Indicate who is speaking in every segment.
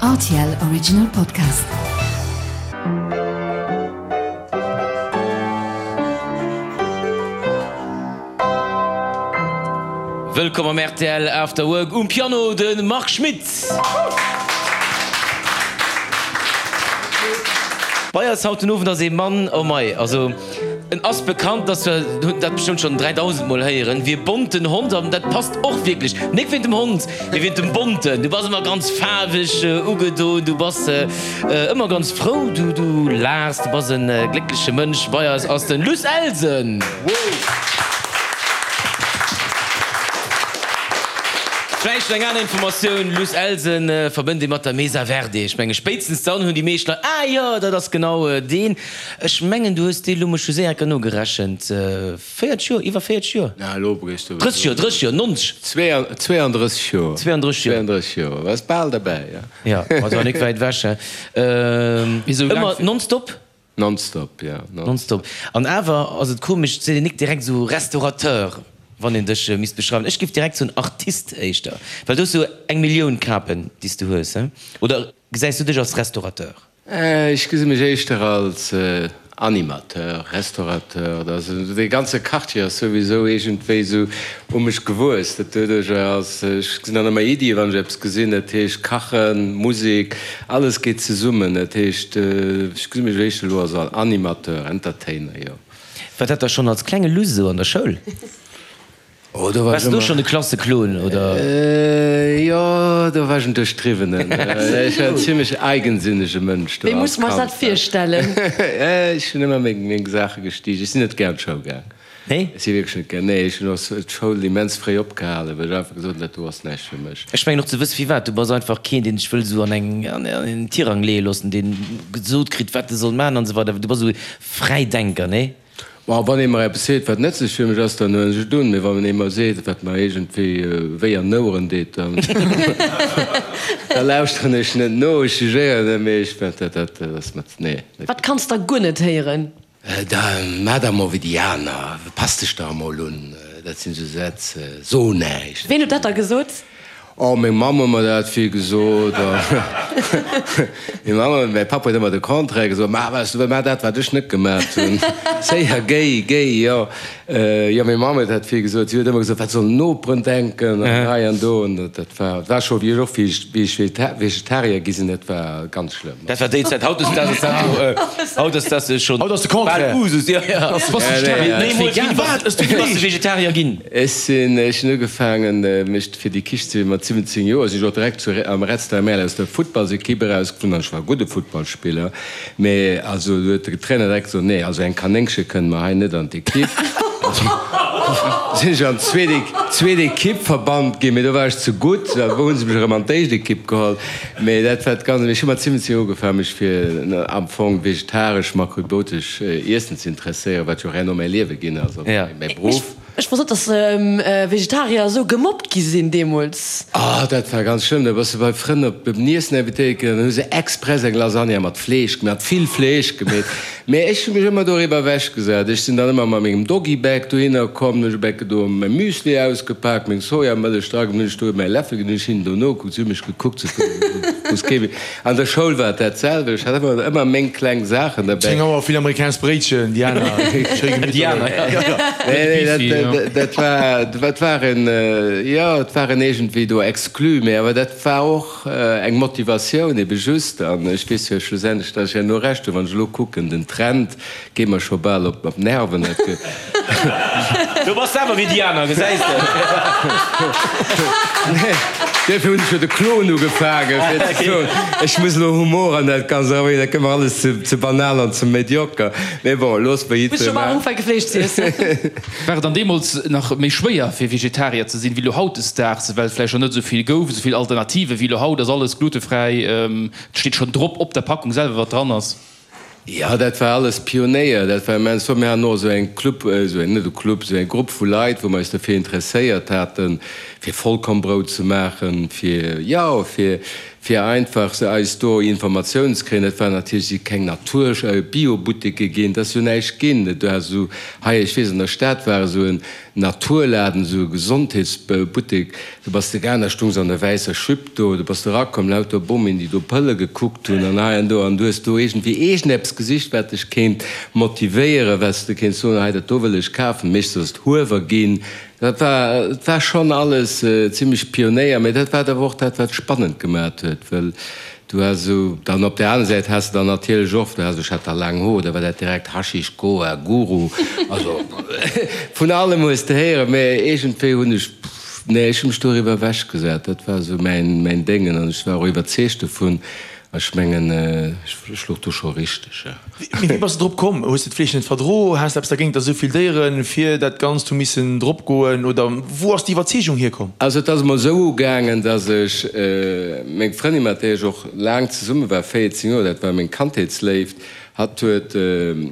Speaker 1: Rtl Original Podcast.
Speaker 2: Wëllkomm am rtl After Work, um Piano de Marc Schmitt. Bei eis haut den Owend ass ee Mann, oh mei, also en ass bekannt, dass wir hunn dat bestëmmt schonn 3000 mol héieren, wéi e bonten Hond an dat passt och wierklech, nik wéint dem Hond, mee wéint dem Bonten. Du bass ëmmer ganz faarweg ugedoen, du bass ëmmer ganz frou, du du laachs, du bass e gléckleche Mënsch. Bei eis ass den Luss Elsen. Vläicht eng aner Informatioun, Luss Elsen verbënnt ee mat der Mesa Verde. Ech menge spéitstens dann hunn déi meescht Leit, ah jo, dat ass genau deen. Ech mengen du hues dee lo, mech hu séier enker nogerechent, 40 Joer, iwwer 40 Joer?
Speaker 3: Na elo bréchs du.
Speaker 2: 30 Joer, 30 Joer, 90.
Speaker 3: 32 Joer.
Speaker 2: 32 Joer.
Speaker 3: 32 Joer, bass bal derbäi,
Speaker 2: jo. Jo, also nik wäit ewech, he. Ëmmer nonstop?
Speaker 3: Nonstop, jo.
Speaker 2: Nonstop. An awer ass et komesch, et seet een nik direkt esou Restaurateur, wann een dech misst beschreiwen. Ech géif direkt soen Artist éischter, well du hues esou eng Millioun Kapen, déi s du hues, he? Oder gesäis du dech als Restaurateur?
Speaker 3: Ech gesi mech éischter als Animateur, Restaurateur. Dee ganze Quartier ass souwisou iergendwéi esou u mech gewuess. Dat doduercher ass, ech gesinn dann ëmmer Iddien, wann ech eppes gesinn. Dat heescht Kachen, Musek, alles geet zesummen. Dat heescht, ech gesi mech éischter elo als Animateur, Entertainer, jo.
Speaker 2: War dat da schonn als klenge Luss esou an der Schoul?
Speaker 3: Oh, do war
Speaker 2: Waars
Speaker 3: ech
Speaker 2: du
Speaker 3: ëmmer.
Speaker 2: schonn de Klasseklon, oder?
Speaker 3: Jo, do war ech en Duerchdriwwenen. Ech war en zimmlech eigensinnege Mënsch do
Speaker 4: Wéi
Speaker 3: als
Speaker 4: muss mer eis
Speaker 3: Kand.
Speaker 4: dat virstellen?
Speaker 3: Ech hunn ëmmer meng, meng Saache gestiicht. Ech sinn net gär an d'Schoul gaang.
Speaker 2: Nee?
Speaker 3: Ech si wierklech net gär, nee, ech hunn och d'Schoul immens fréi opgehalen, well ech einfach gesot hunn, dat do ass näischt fir mech.
Speaker 2: Ech mengen och ze wësse firwat. Du bass einfach keen, deen sech wëll esou an eng, an en Tirang leeë loossen, deen gesot kritt, wat e soll maachen an esou weider. Du bass esou e Fräidenker, nee?
Speaker 3: Ma wann ee mer eppes seet, wat nëtzlech fir mech ass, dann huelen ech et un. Mee wann ee mer seet, wat mer iergendwéi wéi an d'Oueren deet, dann da lauschteren ech net no. Ech jugéieren net, mee ech, dat, dat ass mer, nee.
Speaker 4: Wat kanns der guer net héieren?
Speaker 3: Da maach der emol wéi déi aner, pass dech der emol un. Dat sinn esou Sätz, so näischt.
Speaker 4: Ween huet dat da gesot?
Speaker 3: Oh, meng Mamm huet mer dat vill gesot. Meng Mamm huet, mäi Papp huet ëmmer de Contraire gesot, Maach wat s du wëlls, maach dat, wat ech net gemaat hunn. Séier, géi, géi, jo. Jo, meng Mamm huet dat vill gesot. Si huet ëmmer gesot, wat sollen d'Noperen denken an hei an do. An dat war, dat war scho, wéi ech och, wéi ech Vegetarier gi sinn, dat war ganz schlëmm.
Speaker 2: Dat war déi Zäit. Haut ass dat jo, haut ass dat schonn
Speaker 5: Haut ass de Contraire.
Speaker 2: bal Usus, jo, jo. Nee, mol, wéini bass du Vegetarier ginn?
Speaker 3: Ech sinn, ech hunn ugefaangen, mech fir déi Kicht ze mat 17 Joer sinn ech och direkt zu am Red Star Merl aus der Futtballsequipe erausgeflunn an ech war e gudde Futtballspiller, mee also do huet de Trainer direkt gesot, nee, also eng Kanéngche kënnt mer hei net an d'Equipe. Sinn ech an d'zweet zweet Equipe verbannt ginn, mee do war ech ze gutt, da hu se mech erëm an d'éischt Equipe geholl. Mee dat war d'ganz, ech hu mat 17 Joer ugefaangen mech fir am Fong vegetaresch, makrobiotesch Iessen ze interesséieren, wat jo och herno mäi Liewe ginn ass, also mäi Beruff.
Speaker 4: Ech wosst net, dass Vegetarier esou gemobbt gi sinn deemools.
Speaker 3: Oh, dat war ganz schlëmm. Da bass de bei Frënn op en Iessen invitéiert ginn an dann hu se express eng Lasagne mat Fleesch gemaach, mat vill Fleesch gemeet. Mee ech hu mech ëmmer doriwwer ewechgesat. Ech sinn dann ëmmer mat mengem Doggy-Bag dohinner komm, hunn ech e Becke do mäi Müsli ausgepaakt, meng Sojamëllech dra gemaach, hunn ech do mäi Läffel geholl, hunn ech hinnen do nogekuckt, si hu mech gekuckt, sou wou s kee. An der Schoul war et dat selwecht, ech hat ëmmer ëmmer meng kleng Saachen derbäi.
Speaker 5: 10 Auer vill amerikanescht Bréitchen, déi aner schéi gemitterlech.
Speaker 3: Nee, nee, dat, dat war, dat war en, jo, et war en iergendwéi do exclu, mee awer dat war och eng Motivatioun ebe just. An ech weess jo schlussendlech, datt ech herno Recht hunn, wann ech elo kucken, den Trend Geet mer scho bal op d'Nerven.
Speaker 2: Du bass selwer wéi déi aner, gesäis de.
Speaker 3: Nee, duerfir hunn ech jo de Klon ugefaangen, fir ze soen, ech muss elo Humor an dat Ganzt erabréngen, dat gëtt mer alles ze banal an ze medioker. Mee bon, looss mer
Speaker 4: Muss scho bal ufänke Fleesch ze iessen.
Speaker 6: War et dann deemools nach méi schwéier fir Vegetarier ze sinn, wéi elo hautdesdaags, well et vläicht nach net esou vill gouf, esou vill Alternative wéi elo haut? Ass alles glutefräi, et steet schonn drop op der Packung selwer wat dran ass?
Speaker 3: Jo, dat war alles Pionéier, dat war immens flott. Mir haten och esou eng Club, esou eng, net e Club, esou eng Grupp vu Leit, wou mer eis derfir interesséiert haten, fir Vollkornbrout ze maachen, fir, jo, fir. fir einfach se eis do Informatiounen ze kréien. Dat war natierlech, si keng Natur Biobuteke ginn, et ass jo näischt ginn. Do has esou hei, ech weess an der Stad war esou en Naturladen, esou e Gesondheetsbuttek, do bass de gaang, da stung se an der wäisser Jupe do, do bass de erakomm, lauter Bomien, déi do Pëlle gekuckt hunn an hei an do, an du hues do iergendwéi iergendeppes gesicht, wat dech kéint motivéieren, wat s de kéints soen, hei dat do wëll ech kafen. Meeschtens ass et Huewer ginn. Dat war, et war schonn alles zimlech Pionéier, mä dat war awer och dat, wat spannend gemat huet, well du has esou, dann op där aner Säit has de dann natierlech och, du has, ech hat da laang Hoer, da war dat direkt Haschisch, Goa, Guru, also vun allem hues de héieren, mä iergendwéi hunn ech, nee, ech hu mech doriwwer ewechgesat, dat war esou mäin, mäin Déngen an ech war och iwwerzeegt dovun. Ech mengen, ech louch do scho richteg, jo.
Speaker 5: Mee wéi bass de drop komm? Hues de d'Fleesch net verdro? Has de eppes dergéint, datt esou vill Déiere fir dat Ganzt hu missen drop goen? Oder wou ass déi Iwwerzeegung hierkomm?
Speaker 3: Also et ass emol esou ugaangen, datt ech meng Frëndin, mat där ech och laang zesumme war, 14 Joer, dat war meng Kandheetsléift, Hatt huet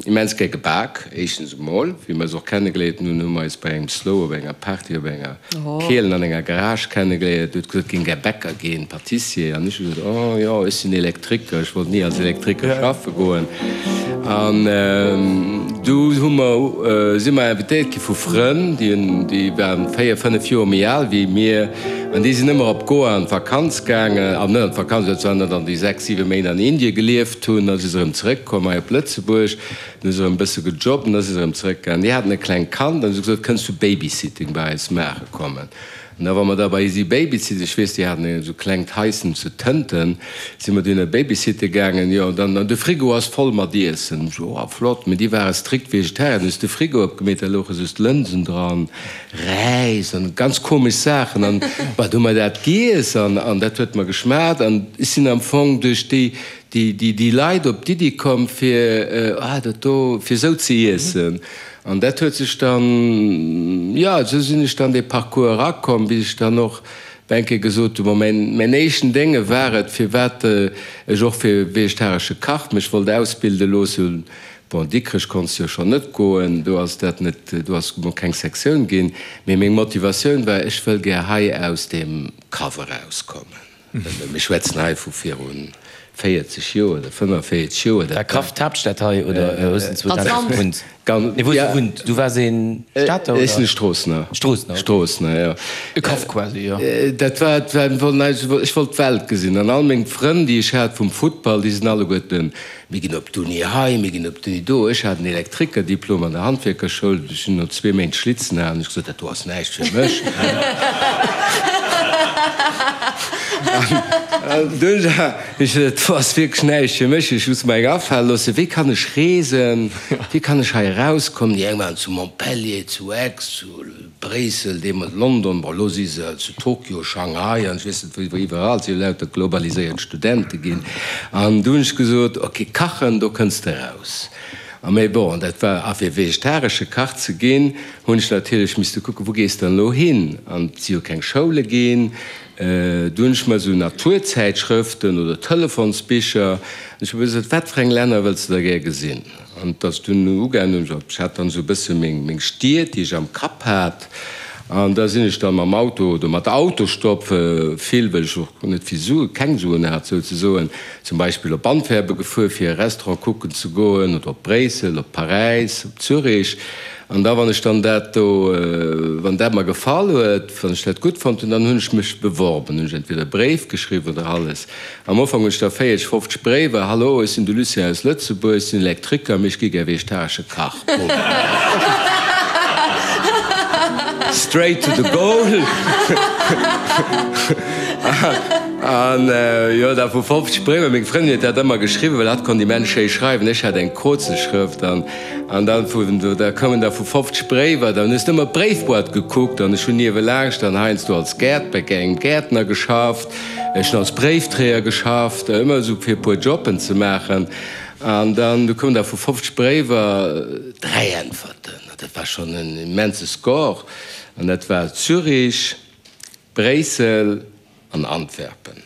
Speaker 3: immens gär gebak, éischtens emol. Wéi mer eis och kennegeléiert hunn, hu mer eis bei engem Slow op enger Party op enger Kielen an enger Garage kennegeléiert. Huet gesot, géing gär Bäcker ginn, Patissier. An ech hu gesot, oh jo, ech sinn Elektriker, ech wollt ni als Elektriker schaffe goen. An du hu mer, si mer invitéiert gi vu Frënn, déi waren 4, 5 Joer méi al wéi mir. An déi sinn ëmmer op Goa an d'Vakanz gaangen, an net an d'Vakanz, dat waren dann déi 6, 7 Méint an Indien gelieft hunn. Da si se erëm zeréckkomm hei op Lëtzebuerg, dann hu se erëm e bësse gejobbt an da si se erëm zeréckgaangen. Déi haten e klengt Kand an hu se gesot, Kënns du Babysitting bei eis maache kommen? An da wa mer da bei si Babysitten, ech weess, déi haten esou klengt Haissen zu Tënten, si mer dunn Babysitte gaangen, jo, an dann, an de Frigo ass voll mat Iessen. Ech so, oh flott, mee déi ware strikt Vegetarier. Dann hu se de Frigo opgemeet, da louche just Lënsen dran. Räis an ganz komesch Saachen an bah, du hu mer dat giess an an dat huet mer geschmaacht an ech sinn am Fong duerch déi déi déi déi Leit op d'Iddi komm fir ah dat do fir esou ze iessen an dat huet sech dann jo esou sinn ech dann dee Parcours erakomm bis ech dann och eng Kéier gesot hu bon mäin mäin éischten Dénge war et firwat ech och fir vegetaresche Kach mech wollt ausbilde loossen. Bon, Dikrech konns jo schonn net goen, do ass dat net, do ass mol keng Sektioun ginn. Mee meng Motivatioun war, ech wëll gär hei aus deem Kaff erauskommen. Mir schwätzen hei vu viru 40 Joer oder 45 Joer.
Speaker 2: War Kaff d'Haaptstad hei oder hues de 2000 gewunnt? Nee, wou hues du gewunnt? Du waars ee Stater
Speaker 3: oder? Ech sinn e Stroossener.
Speaker 2: Stroossener,
Speaker 3: okay. Stroossener, jo.
Speaker 6: E Kaff quasi, jo.
Speaker 3: Dat war, war, ech wollt d'Welt gesinn an all meng Frënn, déi ech hat vum Futtball, déi sinn alleguerten Mir ginn op d'Uni hei, mir ginn op d'Uni do. Ech hat en Elektrikerdiplom an der Handwierkerschoul. Ech hunn no zwee Méint Schlitzen halen ech gesot, dat do ass näischt fir mech. An dunn hu ech gesot, dat do ass wierklech näischt fir mech. Ech muss mer eng afale loossen, wéi kann ech reesen, wéi kann ech hei erauskommen. Déi eng waren zu Montpellier, zu Aix, zu Bréissel, deemools London, bon elo si se zu Tokio, Shanghai an ech weess net wou iwwerall, et si jo lauter globaliséiert Studente ginn. An du hunn ech gesot, ok, kachen, do kënns de raus. A mee bon, dat war, a fir vegetaresche Kach ze ginn, hunn ech natierlech misste kucken, wou gees de dann elo hin? An et si jo keng Schoule ginn. Du hunn ech mer esou Naturzäitschrëften oder Telefonsbicher, an ech hu gesot, wat fir eng Länner wëlls de da gär gesinn? An et ass dunn ugaangen, ech hat dann esou e bësse meng Stied, déi ech am Kapp hat, an da sinn ech dann mam Auto oder mat Autostopp, vill, well ech och net vill Sue, keng Suen hat souzesoen, zum Beispill op Antwerpen gefuer, fir e Restaurant kucken ze goen, oder op Bréissel, op Paräis, op Zürich. An da wann ech dann dat do, wann dat mer gefall huet, wann ech dat gutt fonnt hunn, dann hunn ech mech beworben, hunn ech entweder e Bréif geschriwwen oder alles. Am Ufank hunn ech der 40, 50 Bréiwer, Hallo, ech sinn de Lucien aus Lëtzebuerg, ech sinn Elektriker, mee ech gi gär vegetaresche Kach. Boom. Straight to the goal. An jo, da vu 50 Bréiwer, meng Frëndin huet dat ëmmer geschriwwen, well hatt konnt immens schéi schreiwen, ech hat eng Krozelschrëft. An, an dann vu, da koumen der vu 50 Bréiwer, dann hues de ëmmer d'Bréifboîte gekuckt an ech hunn niewelaanscht dann heiansdo als Gäert, bei engem Gäertner geschafft. Ech hunn als Bréifträger geschafft, ëmmer esou fir e puer Jobben ze maachen. An dann, du koumen da vu 50 Bréiwer 3 Äntwerten. Dat war schonn en immense Score. An dat war Zürich, Bréissel an Antwerpen.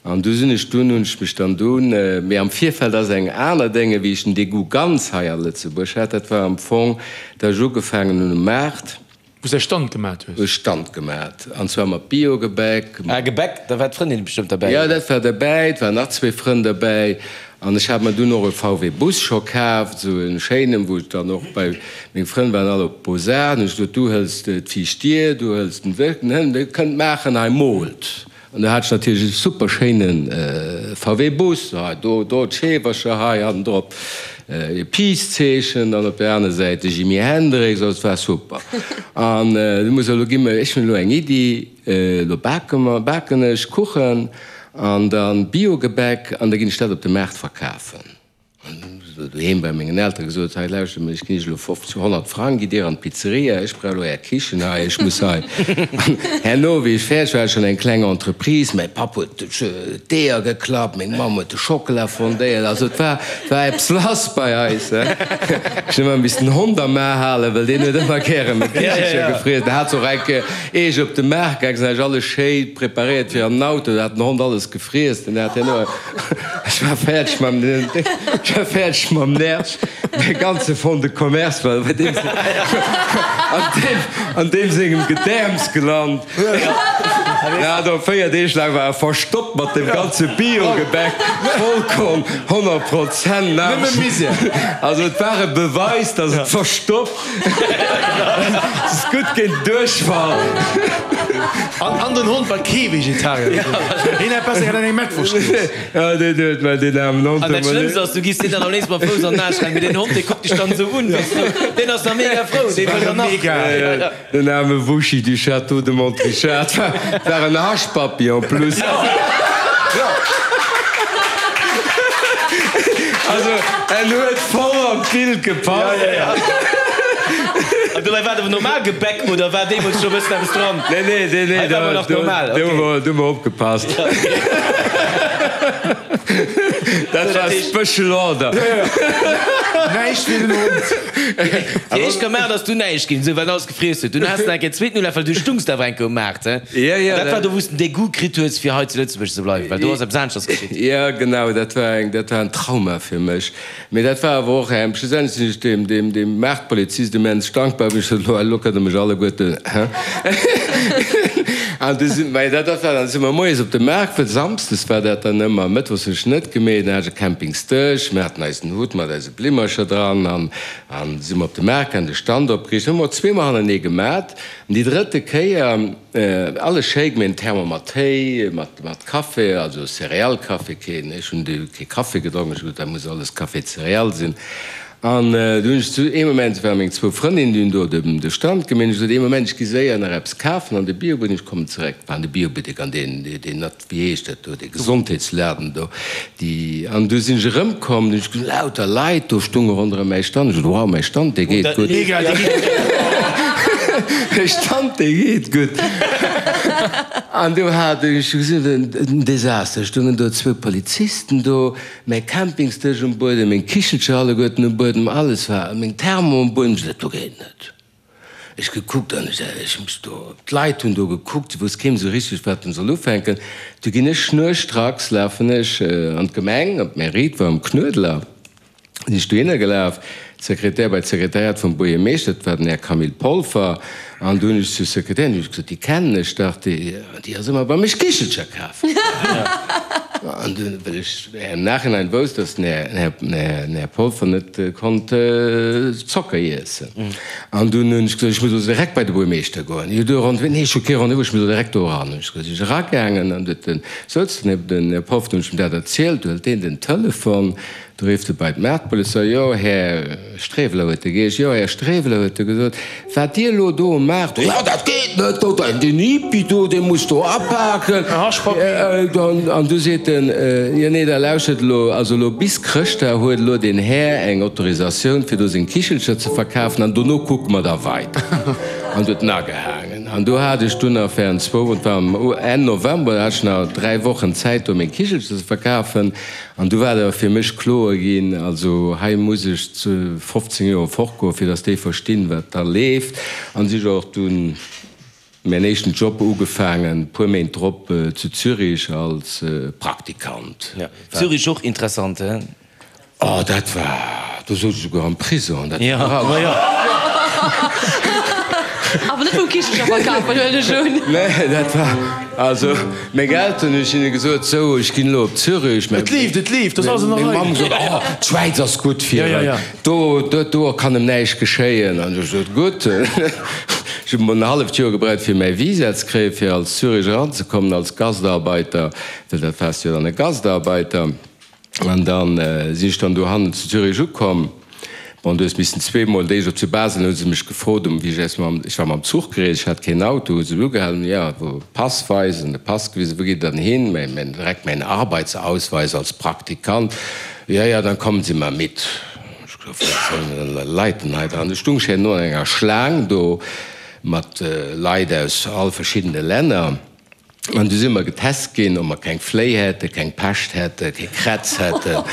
Speaker 3: An du sinn ech dunn, hunn ech mech dann dunn, mee am Virfeld ass eng aner Dénge wéi ech den Degoût ganz hei a Lëtzebuerg hat, dat war am Fong, datt ech ugefaangen hunn um Maart.
Speaker 5: Wou s de Stand gemat hues?
Speaker 3: Wou ech Stand gemat, an zwar mat Biogebäck.
Speaker 2: Ah, Gebäck, da war d'Frëndin bestëmmt derbäi,
Speaker 3: Jo, dat war derbäi, et waren nach zwee Frënn derbäi. An ech hat mer dunn och e VW Bus scho kaaft, esou e schéinen, wou ech dann och bei, meng Frënn waren all op Beaux-Arts, hunn ech gesot, du hëls d'viischt Dier, du hëls den Wësch, den Hënn, dir kënnt maachen, hei moolt. An do hat ech natierlech e super schéine VW Bus, hei do do d'Scheewercher, hei hannendrop e Peace-Zeechen, dann op der aner Säit de Jimi Hendrix, also et war super. An du muss elo gi mer, ech hunn elo eng Iddi, elo bake mer, baken ech Kuchen an dann Biogebäck an da ginn ech dat op de Maart verkafen. An hunn ech doheem bei mengen Eltere gesot, hei lauschtert mol, ech ginn iech elo 50, 100 Frang, gitt dir an d'Pizzeria, ech brauch elo är Kichen hei, ech muss hei. An herno, wéi ech fäerdeg war, hat ech schonn eng kleng Entreprise, mäi Papp huet d'Eeër geklappt, meng Mamm huet de Schockela fondéiert, also et war, et war eppes lass bei eis. Ech hunn ëmmer missen den Hond am A halen, well deen huet ëmmer gäre meng Kichelcher gefriess. Der hat se och eng Kéier, ier ech op de Maart gaang sinn, hat ech alles schéi preparéiert fir an den Auto, da hat den Hond alles gefriess, den hat herno. Ech war fäerdeg mam, ech war fäerdeg mam Nerv. Mäi ganze Fonds de commerce war bei deem, an deem, an deem sengem Gedäerms gelant. Ja, do 4 Deeg laang war e verstoppt mat dem ganze Biogebäck, Vollkorn, 100 Prozent. Nëmme Misär. Also et war e Beweis, dass et verstoppt. Et ass gutt géint Duerchfall.
Speaker 5: An den Hond war kee Vegetarier. Hien hätt besser grad eng Mettwurscht giess.
Speaker 3: Ja, deen huet mer deen aarmen Hond
Speaker 2: An dat Schlëmmst ass, du giss deen dann am léifsten mam Fouss an den Aarsch rennen, mee deen Hond, dee kuckt dech dann esou un, weess du, deen ass da mega frou, dee wëll dann nach.
Speaker 3: Den aarme Wuschi du Château de Montrichard war en Haschpappi en plus. Also en huet voll an d'Bild gepasst.
Speaker 2: An dobäi war et awer normal Gebäck oder war deemools scho e bëssen eppes dran?
Speaker 3: Nee, nee, nee, nee,
Speaker 2: Hei war awer nach normal,
Speaker 3: do hu mer opgepasst. Dat war Special Order.
Speaker 5: Näischt fir den Hond.
Speaker 2: Déi éischt Kamera ass du näischt ginn, esou well alles gefriess huet. Dunn has de nach eng Kéier zweeten Ulaf, well du stungs awer eng Kéier um Maart, he?
Speaker 3: Ja, ja.
Speaker 2: Dat war do, wou s de den Degout kritt hues, fir hei zu Lëtzebuerg ze bleiwen, well do ass eppes aneschters geschitt.
Speaker 3: Ja, genau, dat war eng, dat war en Trauma fir mech. Mee dat war awer och eng, schlussendlech sinn ech deem, deem, deem Maartpolizist immens dankbar, wéi ech sot, elo, elo kënnt Der mech alleguerten, he? An du sinn, mä dat, dat war dann, si mer moies op de Maart, well samsdes war dat dann ëmmer, mëttwochs hunn ech net gemeet, dann hat ech e Campingsdësch, mir haten eisen Hutt mat eise Blimmercher dran an, an si mer op de Maart gaangen, de Stand opgeriicht, hu mer zweemol hannertenee gemat. An déi drëtte Kéier, alles schéi gemeet, en Thermo mat Téi, mat, mat Café, also Céréales-Café, keen, ech hunn du kee Café gedronk, ech hu gesot, dat muss alles Café céréales sinn. An du hunn ech zu ee Moment, et ware meng zwou Frëndinnen, déi hunn do de, de Stand gemeet, ech gesot, ee Moment, ech gi séier nach eppes kafen an de Biobuttek, ech kommen zeréck. War an de Biobuttek, an deen, deen, wéi heescht dat do, dee Gesondheetsladen do, déi, an du sinn ech erëmkomm, du hunn ech gesinn, lauter Leit do stunge ronderëm mäi Stand, ech gesot, wow, mäi Stand, dee geet gutt, mäi Stand, dee geet gutt. An du hat ech gesinn, en Desaster, stungen do zwou Polizisten do, mäi Campingsdësch um Buedem, meng Kichelcher alleguerten um Buedem, alles war, meng Thermo um Buedem, ech gesot, dat do geet net. Ech gekuckt an ech, ech hu mech do, d'Leit hunn do gekuckt, se wousst keen esou richteg wat en soll ufänken. Du ginn ech schnurstracks, lafen ech an d'Gemeng, op d'Mairie, et war um Knuedler, sinn ech dohinner gelaf, d'Sekretär, bei d'Sekretariat vum Buergermeeschter, dat war den Här Camille Polfer, an du hunn ech zur Sekretärin hunn ech gesot, déi kennen ech dach, déi, déi ass ëmmer bei mech Kichelcher kafen. An dunn, well ech im Nachhinein wousst, dass den Här, den Här Polfer net konnt Zocker iessen. An dunn hunn ech gesot, ech muss elo direkt bei de Buermeeschter goen. Jo, du Rendez-vous? Nee, ech hu kee Rendez-vous, ech muss elo direkt do eran. Hunn ech gesot, sinn ech eragaangen an huet den, souz den, den Här Polfer, hunn ech em dat erzielt, du hëlt deen den Telefon, Du rifft e bei d'Maartpolizei, Jo, Här Streweler, huet e geheescht, jo, Här Streweler, huet e gesot, wat Dir elo do um Maart, jo, dat geet net, do, deen Hippie do, dee muss do apaken. An du seet en, Jo, nee, da lauschtert elo, also elo bis Chrëschtdag huet elo deen Här eng Autorisatioun, fir do seng Kichelcher ze verkafen, an dono kucke mer da weider. An du huet en agehaangen. An do hat ech dunn nach während zwou, et war Enn November, da hat ech nach dräi Wochen Zäit, do meng Kichelcher ze verkafen. An du war et awer fir mech kloer ginn, also hei muss ech zu 15 Joer fortgoen, fir datt déi verstinn, wat da leeft. An si ech och dunn mäin éischten Job ugefaangen, puer Méint drop zu Zürich als Praktikant.
Speaker 2: Ja, Zürich och interessant, he?
Speaker 3: Oh, dat war, do souz ech souguer am Prison, dat war.
Speaker 2: Ja, ma jo.
Speaker 4: Awer net vum Kichelcher verkafen, huelen ech un.
Speaker 3: Nee, dat war, also meng Elteren hunn ech hinne gesot, sou, ech ginn elo op Zürich.
Speaker 5: Et leeft, et leeft, dat ass alles an der
Speaker 3: Meng
Speaker 5: Rei.
Speaker 3: Mamm gesot, oh, d'Schwäiz ass gutt fir
Speaker 5: Ja, ja,
Speaker 3: en,
Speaker 5: ja.
Speaker 3: do, do, do kann em näischt geschéien. An ech gesot, gutt. Ech hunn en halleft Joer gebraucht, fir mäi Visa ze kréien, fir als Zürich eranzekommen als Gastarbeiter, well dat waars jo dann e Gastarbeiter. An dann sinn ech dann dohannen zu Zürich ukomm. Bon, du hues missen zweemol, d'éischt op zu Basel hu se mech gefrot, um wéi ech aus mam, ech war mam Zuch gereest, ech hat keen Auto, hu se mech ugehalen, jo, wou Pass weisen, de Pass gewisen, wou geet et dann hin, mäin, mäin, direkt mäin Arbeitsausweis als Praktikant, ja, ja, dann kommen Sie mal mit. Ech gesot, wat sollen denn Leit denn hei dran? Du stung ech herno an enger Schlaang do mat Leit aus all verschiddene Länner. An du si mer getest ginn, ob mer keng Fléi hätten, keng Pescht hätten, kee Krätz hätten,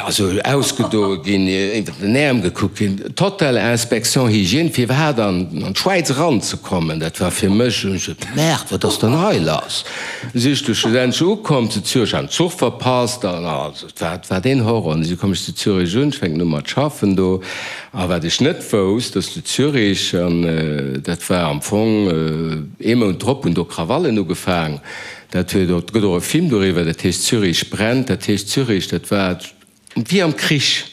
Speaker 3: also ausgedoe ginn, iwwer den Äerm gekuckt ginn. Total Inspection Hygiène, fir iwwerhaapt an d'Schwäiz eranzekommen. Dat war fir mech, hunn ech gesot, Merde, wat ass dann hei lass? Du si ech du schlussendlech ukomm zu Zürich, hat den Zuch verpasst an also et war, et war deen Horror. An du komm ech zu Zürich un, ech fänken u mat schaffen do. A wat ech net wousst, dass zu Zürich, an dat war am Fong ee Mount drop, hunn do Krawallen ugefaang. Dat huet och, et gëtt och e Film doriwwer, dat heescht Zürich brennt. Dat heescht Zürich, dat war wéi am Krich.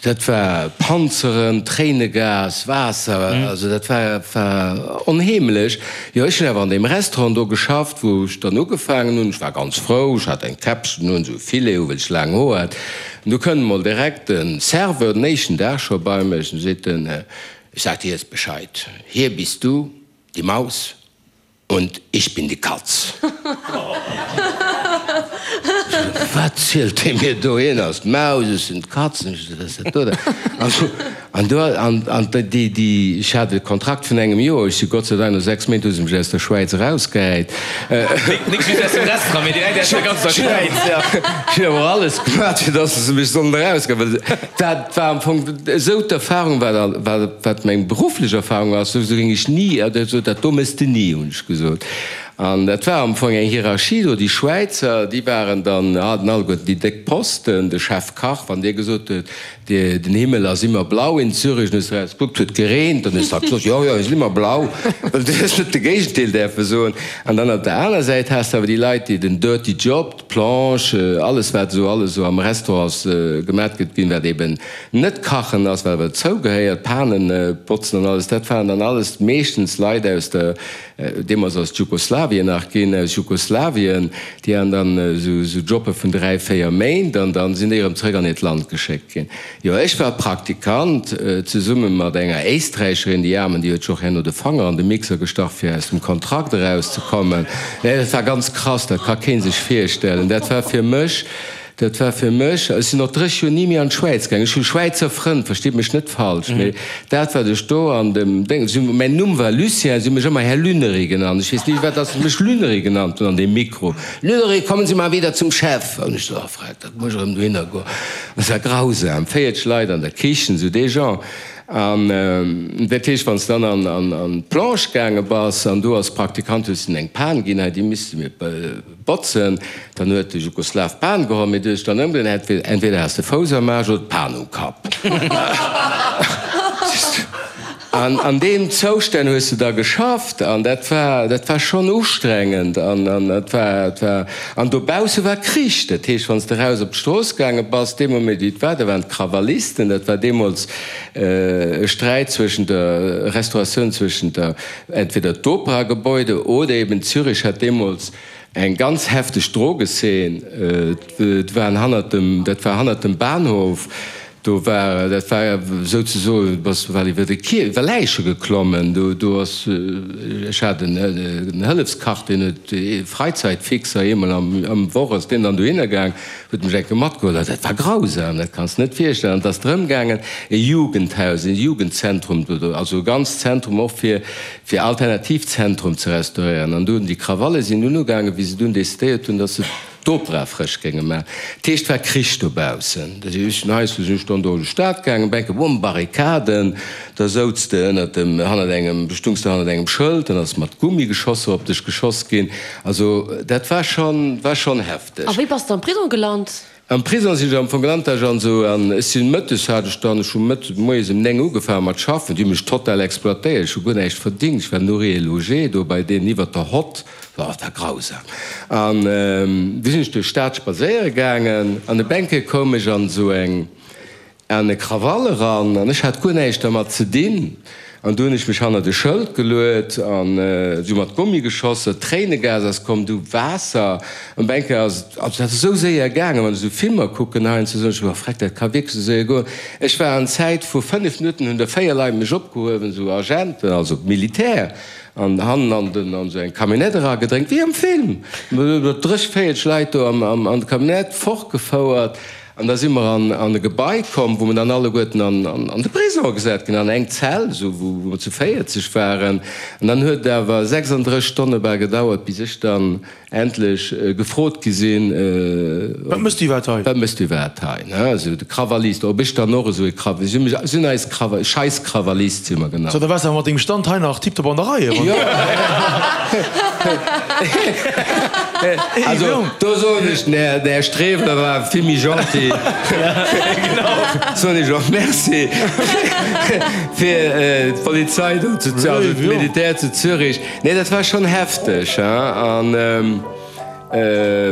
Speaker 3: Dat war Panzeren, Tréinegas, Waasser, also dat war war onheemlech. Jo, ech hunn awer an deem Restaurant do geschafft, wou ech dann ugefaangen hunn. Ech war ganz frou, ech hat eng Käppchen un, esou e Filet u well ech laang Hoer hat. An du kënnt emol direkt de Serveur den éischten Dag scho bei mech an seet en, Ich sag dir jetzt Bescheid, hier bist du die Maus und ich bin die Katz. Wat zielt dee mir do? Hien ass d'Maus, ech sinn d'Katz. An ech sot, Wat ass dat do da? An do, an, an déi, déi, ech hat e Kontrakt vun engem Joer, ech si Gott sei Dank no 6 Méint hu se mech aus der Schwäiz erausgehäit.
Speaker 2: Nik just aus dem Restaurant, mee direkt aus der ganzer Schwäiz, ja.
Speaker 3: Ech hunn awer och alles gemaach, fir datt se mech sollen erausgeheien, well dat war am Fong esou d'Erfahrung, wat, wat, wat meng berufflech Erfahrung ass, esou géing ech ni, esou dat do méchs de ni, hunn ech gesot. An dat war am Fong eng Hierarchie do, déi Schwäizer, déi waren dann, haten alleguerten déi déck Posten, de Chefkach, wann dee gesot huet, Den Himmel ass immer blau in Zürich. Dann hues de eraus gekuckt, huet gereent. Dann hues de gesot, jo, jo, ass immer blau. Well du hues net de Géigendeel däerfe soen. An dann op der aner Säit has de awer déi Leit, déi den dirty job, d'Planche, alles wat esou alles esou am Restaurant gemat gëtt ginn, wat eben net kachen ass, wat awer dozougehéiert, Panen botzen an alles, dat waren dann alles meeschtens Leit aus der Deemools ass et Jugoslawien nach ginn, aus Jugoslawien, déi han dann esou Jobbe vun 3, 4 Méint an dann sinn déi erëm zrëck an hiert Land geschéckt ginn. Jo, ech war Praktikant, zesumme mat enger Éisträicherin, déi Aarmen, déi huet sech och herno de Fanger an de Mixer gestach, fir aus dem Kontrakt erauszekommen. Nee, dat war ganz krass, dat ka kee sech virstellen. Dat war fir mech Dat war fir mech, ech sinn och 30 Joer ni méi an d'Schwäiz gaangen, ech hu Schwäizer Frënn, verstitt mech net falsch, mee dat wat ech do an dem Déng, si hu, mäin Numm war Lucien, si hu mech ëmmer Här Lüneri genannt, ech weess ni firwat dass se mech Lüneri genannt hunn an deem Mikro, Lüneri, kommen Sie mal wieder zum Chef! An ech sou, oh freck, dat muss ech erëm dohinner goen. Dat war grausam, 40 Leit an der Kichen, sou dee Genre. An dat heescht, wann s de dann an d'Planche gaange bass an do als Praktikant hues de eng Pan ginn, hei déi misste mir Botzen, dann huet de Jugoslaw d'Pan geholl, mee du hues dann ëmgedréint, entweder has de Fouss am Aarsch oder d'Pan um Kapp. An an deem Zoustänn hues de da geschafft an dat war, dat war schonn ustrengend an an et war, et war, an dobausse war Krich. Dat heescht, wann s de raus op d'Strooss gaange bass, dee Moment wéi et war, da waren d'Krawallisten, dat war deemools e Sträit zwëschent der Restauratioun, zwëschent der Entweder d'Operagebäude oder eben Zürich hat deemools eng ganz hefteg Drogeszeen. Et waren hannert dem, dat war hannert dem Bahnhof, do war, dat war souzesoen, du bass bal iwwer de Kier, iwwer Läiche geklommen. Do, do ass, ech hat en Hëllefskach, deen huet, Freizeitfixer, eemol am, am Woch ass deen dann dohinner gaang, huet mech eng Kéier matgeholl. Dat war grausam, dat kanns de net virstellen. An et ass drëm gaangen, e Jugendhaus, e Jugendzentrum, also e ganzt Zentrum och fir, fir Alternativzentrum ze restauréieren. An do hunn déi Krawalle sinn dunn ugaangen, wéi se dunn decidéiert hunn, datt se d'Opera frësch géinge maachen. Dat heescht, et war Krich dobaussen. Da sinn ech heiansdo sinn ech dann do an d'Stad gaangen, bänke bumm, Barrikaden, da souz de ënnert dem, hannert engem, stungs de hannert engem Schëld, dann ass mat Gummigeschosser op dech geschoss ginn. Also dat war schonn, war schonn hefteg.
Speaker 4: A wéi bass de am Prisong gelant?
Speaker 3: Am Prison sinn ech am Fong gelant, ech an esou, an ech sinn mëttes hat ech dann, ech hu mëttes, moies ëm 9 ugefaange mat schaffen, déi hu mech total exploitéiert, ech hu guer näischt verdingt, ech war nourri et logé do bei deenen iwwert der Hott, oh, dat war grausam. An du sinn ech duerch d'Stad spadséiere gaangen an op eng Kéier koum ech an esou eng, An e Krawall eran, an ech hat guer näischt dermat ze dinn. An du hunn ech mech hannert e Schëld geluet, an si hu mat Gummi geschoss, Tréinegas ass komm, du Waasser. An op eng Kéier ass et, also dat ass esou séier gaangen, wann ech esou Filmer kucken heiansdo, soen ech, oh freck, dat ka wierklech esou séier goen. Ech war an Zäit vu 5 Minutten hunn der 4 Leit mech opgehuewen, esou Agenten, also Militär, an hannen an den, an esou eng Camionnette eragedréngt, wéi am Film, 30, 40 Leit do an d'Camionnette, fortgefouert. An da si mer an e Gebai komm, wou mer dann alleguerten an de Prisong gesat ginn, an eng Zell, esou wou mer zu 40 waren. An dann huet et awer 36 Stonne bal gedauert, bis ech dann endlech gefrot gi sinn,
Speaker 5: Wat méchs du iwwerhaapt hei?
Speaker 3: Wat méchs du iwwerhaapt hei? Ne, esou de Krawallist, ob ech dann och esou e Krawall, si hunn mech, si hunn eis Krawall, Scheiss-Krawallist si mer genannt.
Speaker 5: So, da waars de awer mat dengem Stand hei nach tiptop an der Rei,
Speaker 3: Jo. Also do soen ech, den Här Streweler war vill méi gentil. Soen ech och Merci fir d'Polizei do zu, also d'Militär zu Zürich. Nee, dat war schonn hefteg, hein. An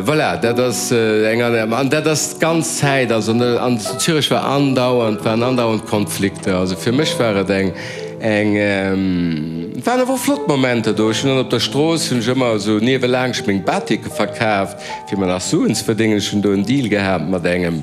Speaker 3: voilà, dat ass eng, an dat ass d'ganz Zäit, also an zu Zürich war andauernd, waren andauernd Konflikter. Also fir mech war et eng, Eng, et waren awer och flott Momenter do. Ech hunn dann op der Strooss hunn ech ëmmer esou niewelaanscht meng Batike verkaaft, fir mer nach Suen ze verdéngen. Ech hunn do en Deal gehat mat engem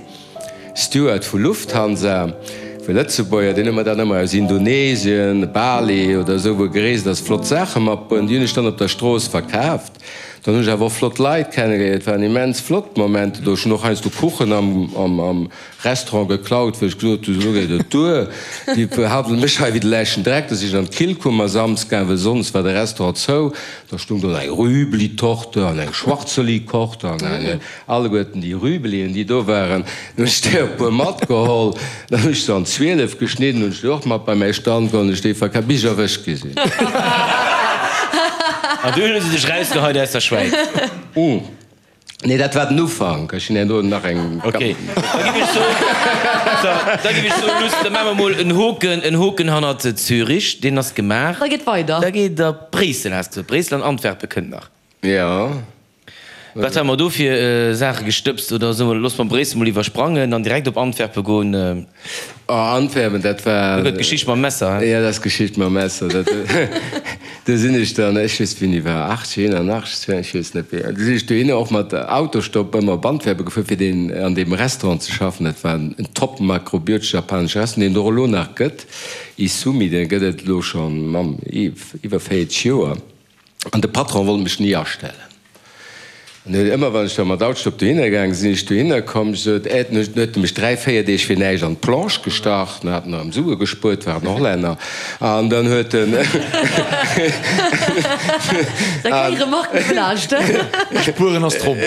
Speaker 3: Steward vu Lufthansa, e Lëtzebuerger, deen huet mer dann ëmmer aus Indonesien, Bali oder esou, wou e gereest ass, flott Saache matbruecht. Déi hunn ech dann op der Strooss verkaaft. Dann hunn ech awer och flott Leit kennegeléiert. Et waren immens flott Momenter do. Ech hunn och heiansdo Kuchen am Restaurant geklaut, wou ech gesot hunn, elo geet et duer, déi behandele mech hei wéi de läschten Dreck. Da sinn ech an d'Killkummer Samsgaang, well sonns war de Restaurant zou. Da stung do eng Rüblitorte an eng Schwarzelikorte an eng, alleguerten déi Rüblien, déi do waren. Dann hunn ech der e puer matgeholl. Dann hunn ech se an 12 geschnidden, hunn ech déi och mat bei mäi Stand geholl, hunn ech déi verkaf, bis ech erwëscht gi sinn.
Speaker 2: An dunn hu se dech rausgeheit aus der Schwäiz.
Speaker 3: Nee, dat war den Ufank. Ech hunn herno nach eng.
Speaker 2: Ok, da giff ech soen, da giff ech soen, Luss, da maache mer mol en Hoken, en Hoken hannert Zürich, deen ass gemaach.
Speaker 4: Da geet weider.
Speaker 2: Da geet et a Bréissel, has de gesot. Bréissel an Antwerpen kënnt nach.
Speaker 3: Jo.
Speaker 2: Wat hu mer do fir Saache gestëbst? Oder soe mer, loosse mer Bréissel mol iwwersprangen an direkt op Antwerpen goen?
Speaker 3: Oh, Antwerpen, dat war.
Speaker 2: Do gëtt d'Geschicht mam Messer,
Speaker 3: he? Jo, dat ass d'Geschicht mam Messer. Dat, do sinn ech dann, ech weess wéini war, 80, 81, 82, ech weess net wéi, do sinn ech dohinner och mat Autostopp ëmmer op Antwerpen gefuer, fir deen, an deem Restaurant ze schaffen. Dat war en top makrobiotesch japanesche Restaurant, deen et och elo nach gëtt, Isumi, dee gëtt et elo schonn, Mamm, iwwer 40 Joer. An de Patron wollt mech ni astellen. An huet ëmmer, wann ech da mat Autostopp dohinner gaange sinn, ech dohinner komm, sot, Ä, dann huet e mech 3, 4 Deeg fir näischt an d'Planche gestach, dann hat en erëm Sue gespuert, war en Hollänner, an dann huet en.
Speaker 4: Da keng Remarque vläicht.
Speaker 5: Spueren ass drop.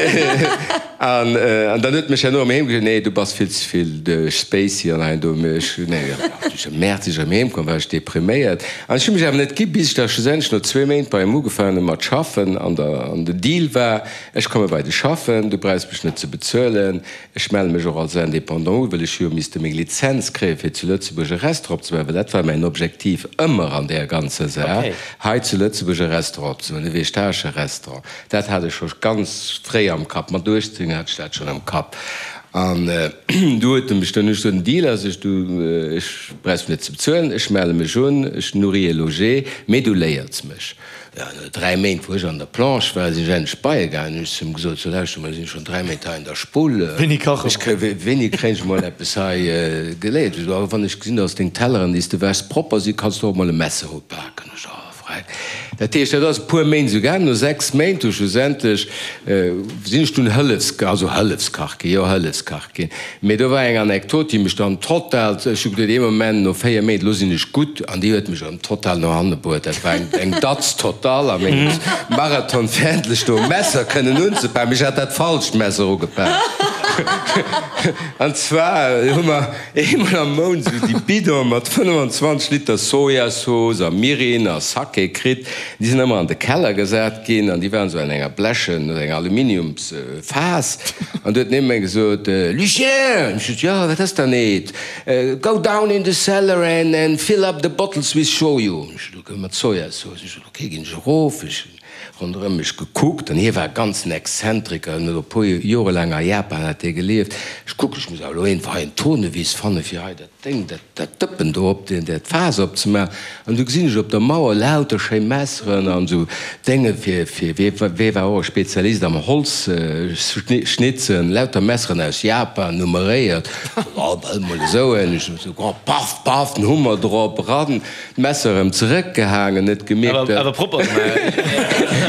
Speaker 3: An dann huet mech herno erëm heem gesot, Nee, du bass vill ze vill spacey an hei an do. Mee ech, nee, ech am Mäerz, wéi ech erëm heem komm, war ech depriméiert. An ech hu mech awer net gi, bis ech da schlussendlech no zwee Méint bei him ugefaangen hu mat schaffen. An der, an den Deal war, Ech komme bei dech schaffen, du brauchs mech net ze bezuelen, ech melle mech och als Indépendant u, well ech hu jo misste meng Lizenz kréien, fir zu Lëtzebuerg e Restaurant opzemaachen, well dat war mäin Objektiv ëmmer an där ganzer Saach, hei zu Lëtzebuerg e Restaurant opzemaachen, e vegetaresche Restaurant. Dat hat ech scho ganz fréi am Kapp, mat 18 hat ech dat schonn am Kapp. An du huet e mech dann, ech sot, den Deal ass, ech, du, ech brauchs mech net ze bezuelen, ech melle mech un, ech nourris et loger, mee du léiers mech. Jo, no 3 Méint, wou ech an der Planche war, sinn ech endlech bei e gaangen, hunn ech zu him gesot, so lauschter mol, ech sinn schonn 3 Méint hei an der Spull,
Speaker 5: Wéini kache
Speaker 3: ech mer? Wéini kréien ech mol eppes hei geléiert? Ech sot, oh, wann ech gesinn, dass deng Telleren, déi s de wäschs, propper sinn, kanns du och mol e Messer upaken. Ech, oh. Dat heescht, dat ass e puer Méint esou gaangen. No 6 Méint hu schlussendlech, sinn ech dunn Hëllefs, also Hëllefskach ginn, jo Hëllefskach ginn. Mee do war eng Anekdot, déi mech dann total, ech hu geduet ee Moment, no 4 Méint, elo sinn ech gutt, an déi huet mech erëm total no hanne bruet. Dat war eng, eng Datz total a mengem Marathon, fir endlech do e Messer kënnen unzepaken. Mee ech hat dat falscht Messer ugepak. An zwar hu mer eemol am Mount esou déi Bidone mat 25 Liter Sojasauce a Mirin a Sake kritt. Déi sinn ëmmer an de Keller gesat ginn an déi waren esou an enger blechen oder enger Aluminiumsfaass. An du huet den Emeng gesot, Lucien! Ech sot, Jo, wat ass dann, Ed? Go down in the cellar and fill up the bottles with shoyu. Ech sot, Ok, mat Sojasauce. Ech sot, Ok, ginn ech erof. Ech hunn ronderëm mech gekuckt an hie war ganz en Exzentriker, en huet e puer Jore laang a Japan hat hie gelieft. Ech kucken, ech muss awer elo iergendwou hei en Tournevis fanne fir hei dat Déng, dat, dat Dëppen do op deen, dat Faass opzemaachen. An du gesinn ech op der Mauer lauter schéi Messeren an esou Dénge fir, fir, wee, wee war och e Spezialist am Holz schnitzen, lauter Messeren aus Japan, nummeréiert. Oh, well mol esou en, ech esou, oh, paff, paff, den Hummer drop, eran. D'Messer erëm zeréckgehaangen, net gemierkt, dat.
Speaker 2: Awer propper gemaach.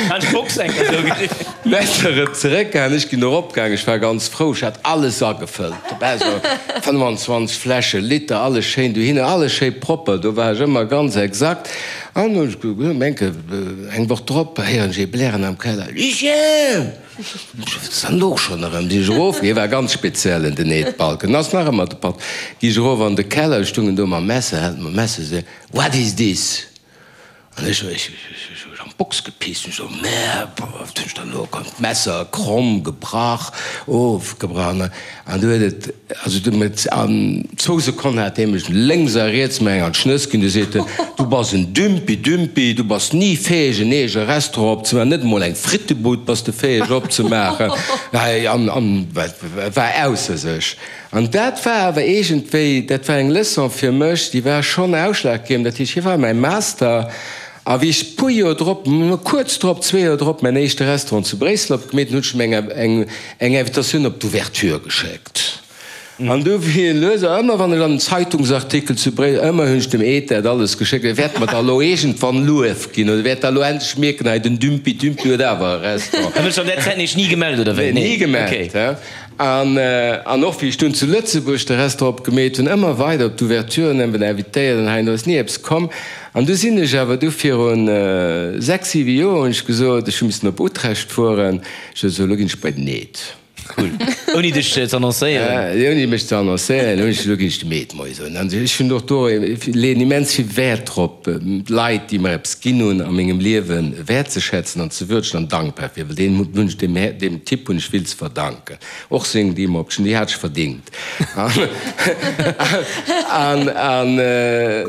Speaker 2: Hat Box eng Kéier esou gesinn.
Speaker 3: D'Messer erëm zeréckgehaangen, ech ginn eropgaangen, ech war ganz frou, ech hat alles agefëllt, dobäi esou 25 Fläschen, Liter, alles schéin dohinner, alles schéi propper, do war ech ëmmer ganz exakt. An ech menke eng Woch drop héieren ech ee blären am Keller, Lucien! Wat ass dann elo schonn erëm? Sinn ech erof, hie war ganz speziell en den Ed Balken, ass nach ëmmer de Patt, gi ech erof an de Keller, ech stungen do mam Messer, hält mam Messer se, What is this? An ech, ech, ech hu an d'Box gepisst, ech so, Merde, wat hunn ech dann elo, komm, d'Messer kromm, gebrach, ofgebrach, an du huet et, Also du met an zwou Sekonnen hat hie mech lénks a riets mer eng an d'Schnëss ginn. Du seet en, du bass en Dümpi, Dümpi, du bass ni fäeg en eege Restaurant opzemaachen, net emol eng Frittebud bass de fäeg opzemaachen. An an war ausser sech. An dat war awer iergendwéi, dat war eng Leçon fir mech, déi war schonn ausschlaggebend. Dat heescht, hie war mäi Master. A wéi ech puer Joer drop, kuerz drop, zwee Joer drop, mäin éischte Restaurant zu Bréissel opgemeet hunn, hunn ech em eng eng Invitatioun op d'Ouverture geschéckt. An du wéi en lues, ëmmer wann ech an en Zeitungsartikel zu Bréissel, ëmmer hunn ech dem Ed dat alles geschéckt, e wäert mer da elo iergendwann Luef ginn oder wäert da elo endlech mierken, hei den Dümpi Dümpi huet awer e Restaurant.
Speaker 2: An huet sech an där Zäit nees ni gemellt, oder wéi?
Speaker 3: Nee, ni gemellt. An an och wéi ech dunn zu Lëtzebuerg de Restaurant opgemeet hunn, ëmmer weider op d'Ouverturen invitéiert an hei an do ass ni eppes komm. An du sinn ech awer du virun 6, 7 Joer hunn ech gesot, ech hu missen op Utrecht fueren, ech hu gesot, elo ginn ech bei den Ed.
Speaker 2: Cool. Ouni dech ze annoncéieren?
Speaker 3: Ouni mech ze annoncéieren, hunn ech gesot, elo ginn ech dem Ed Moie soen. An ech hunn och do, leeën immens vill Wäert drop, d'Leit, déi mer eppes ginn hunn a mengem Liewen, wäertzeschätzen an ze würdegen an dankbar fir, well deen hunn ech, deem deem Typ hunn ech vill ze verdanken. Och seng Deem-Option, déi hat ech verdingt. An an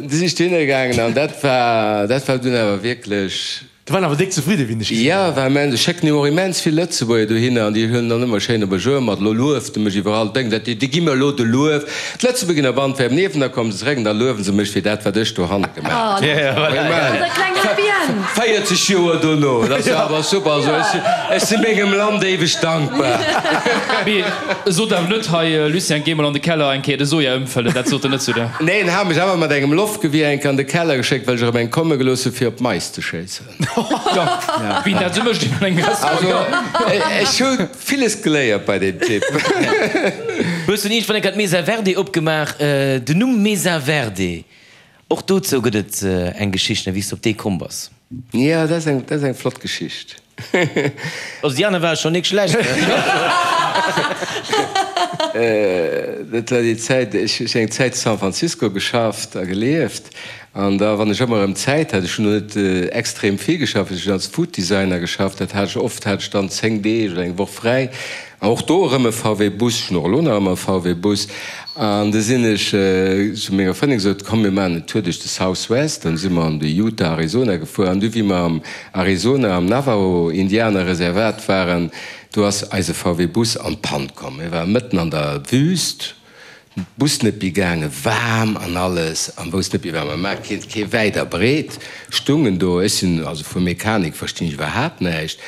Speaker 3: du si ech dohinner gaangen an dat war, dat war dunn awer wierklech.
Speaker 5: Do waren awer déck zefridde wéi dech gesinn
Speaker 3: hunn. Jo, war immens. Ech schécken jo och immens vill Lëtzebuerger dohinner an déi huelen dann ëmmer schéin op e Jour mat. Elo lueft e mech iwwerall, denken se, déi gi mer elo de Luef. D'Lëtzebuerger ginn op Antwerpen iewen, da komme se zeréck an da luewen se mech fir dat, wat ech dohanne gemaach hunn. 40 Joer dono, dat ass jo awer super. Also ech si mengem Land éiweg dankbar.
Speaker 6: Mee sot awer net, hei Lucien, géi mol an de Keller eng Kéier de Soja ëmfëllen. Dat sot en net zu der.
Speaker 3: Nee, en hat mech awer mat engem Loftgewier eng Kéier an de Keller geschéckt, well ech erëm eng komme gelooss hu fir op d'Mais ze schéissen.
Speaker 6: Wien dat esou mécht an engem Restaurant, jo.
Speaker 3: Also ech hu villes geléiert bei deem Typ.
Speaker 2: Hues du iergendwann eng Kéier d'Mesa Verde opgemaach? Den Numm Mesa Verde, Och dozou gëtt et eng Geschicht, wéi s de op déi komm bass.
Speaker 3: Jo, dat ass eng, dat ass eng flott Geschicht.
Speaker 2: Also déi aner ware schonn nik schlecht.
Speaker 3: Dat war déi Zäit, ech hu eng Zäit zu San Francisco geschafft a gelieft an da wann ech ëmmer erëm Zäit hat, ech hunn do net extrem vill geschafft, ech hunn als Food Designer geschafft, dat hat ech oft, hat ech dann 10 Deeg oder eng Woch fräi An och do erëm e VW Bus, ech hunn och elo nach ëmmer e VW Bus. An du sinn ech zu menger Frëndin gesot, komm mir maachen en Tour duerch de South West. Dann si mer an de Utah, Arizona gefuer. An du wéi mer am Arizona am Navajo Indianer Reservat waren, do ass eise VW Bus an d'Pann komm. Mir ware mëtten an der Wüst. Bus net méi gaangen, waarm an alles, an wousst net méi wat mer maachen, keen kee wäit a breet, stungen do, ech sinn, also vu Mechanik verstinn ech iwwerhaapt näischt,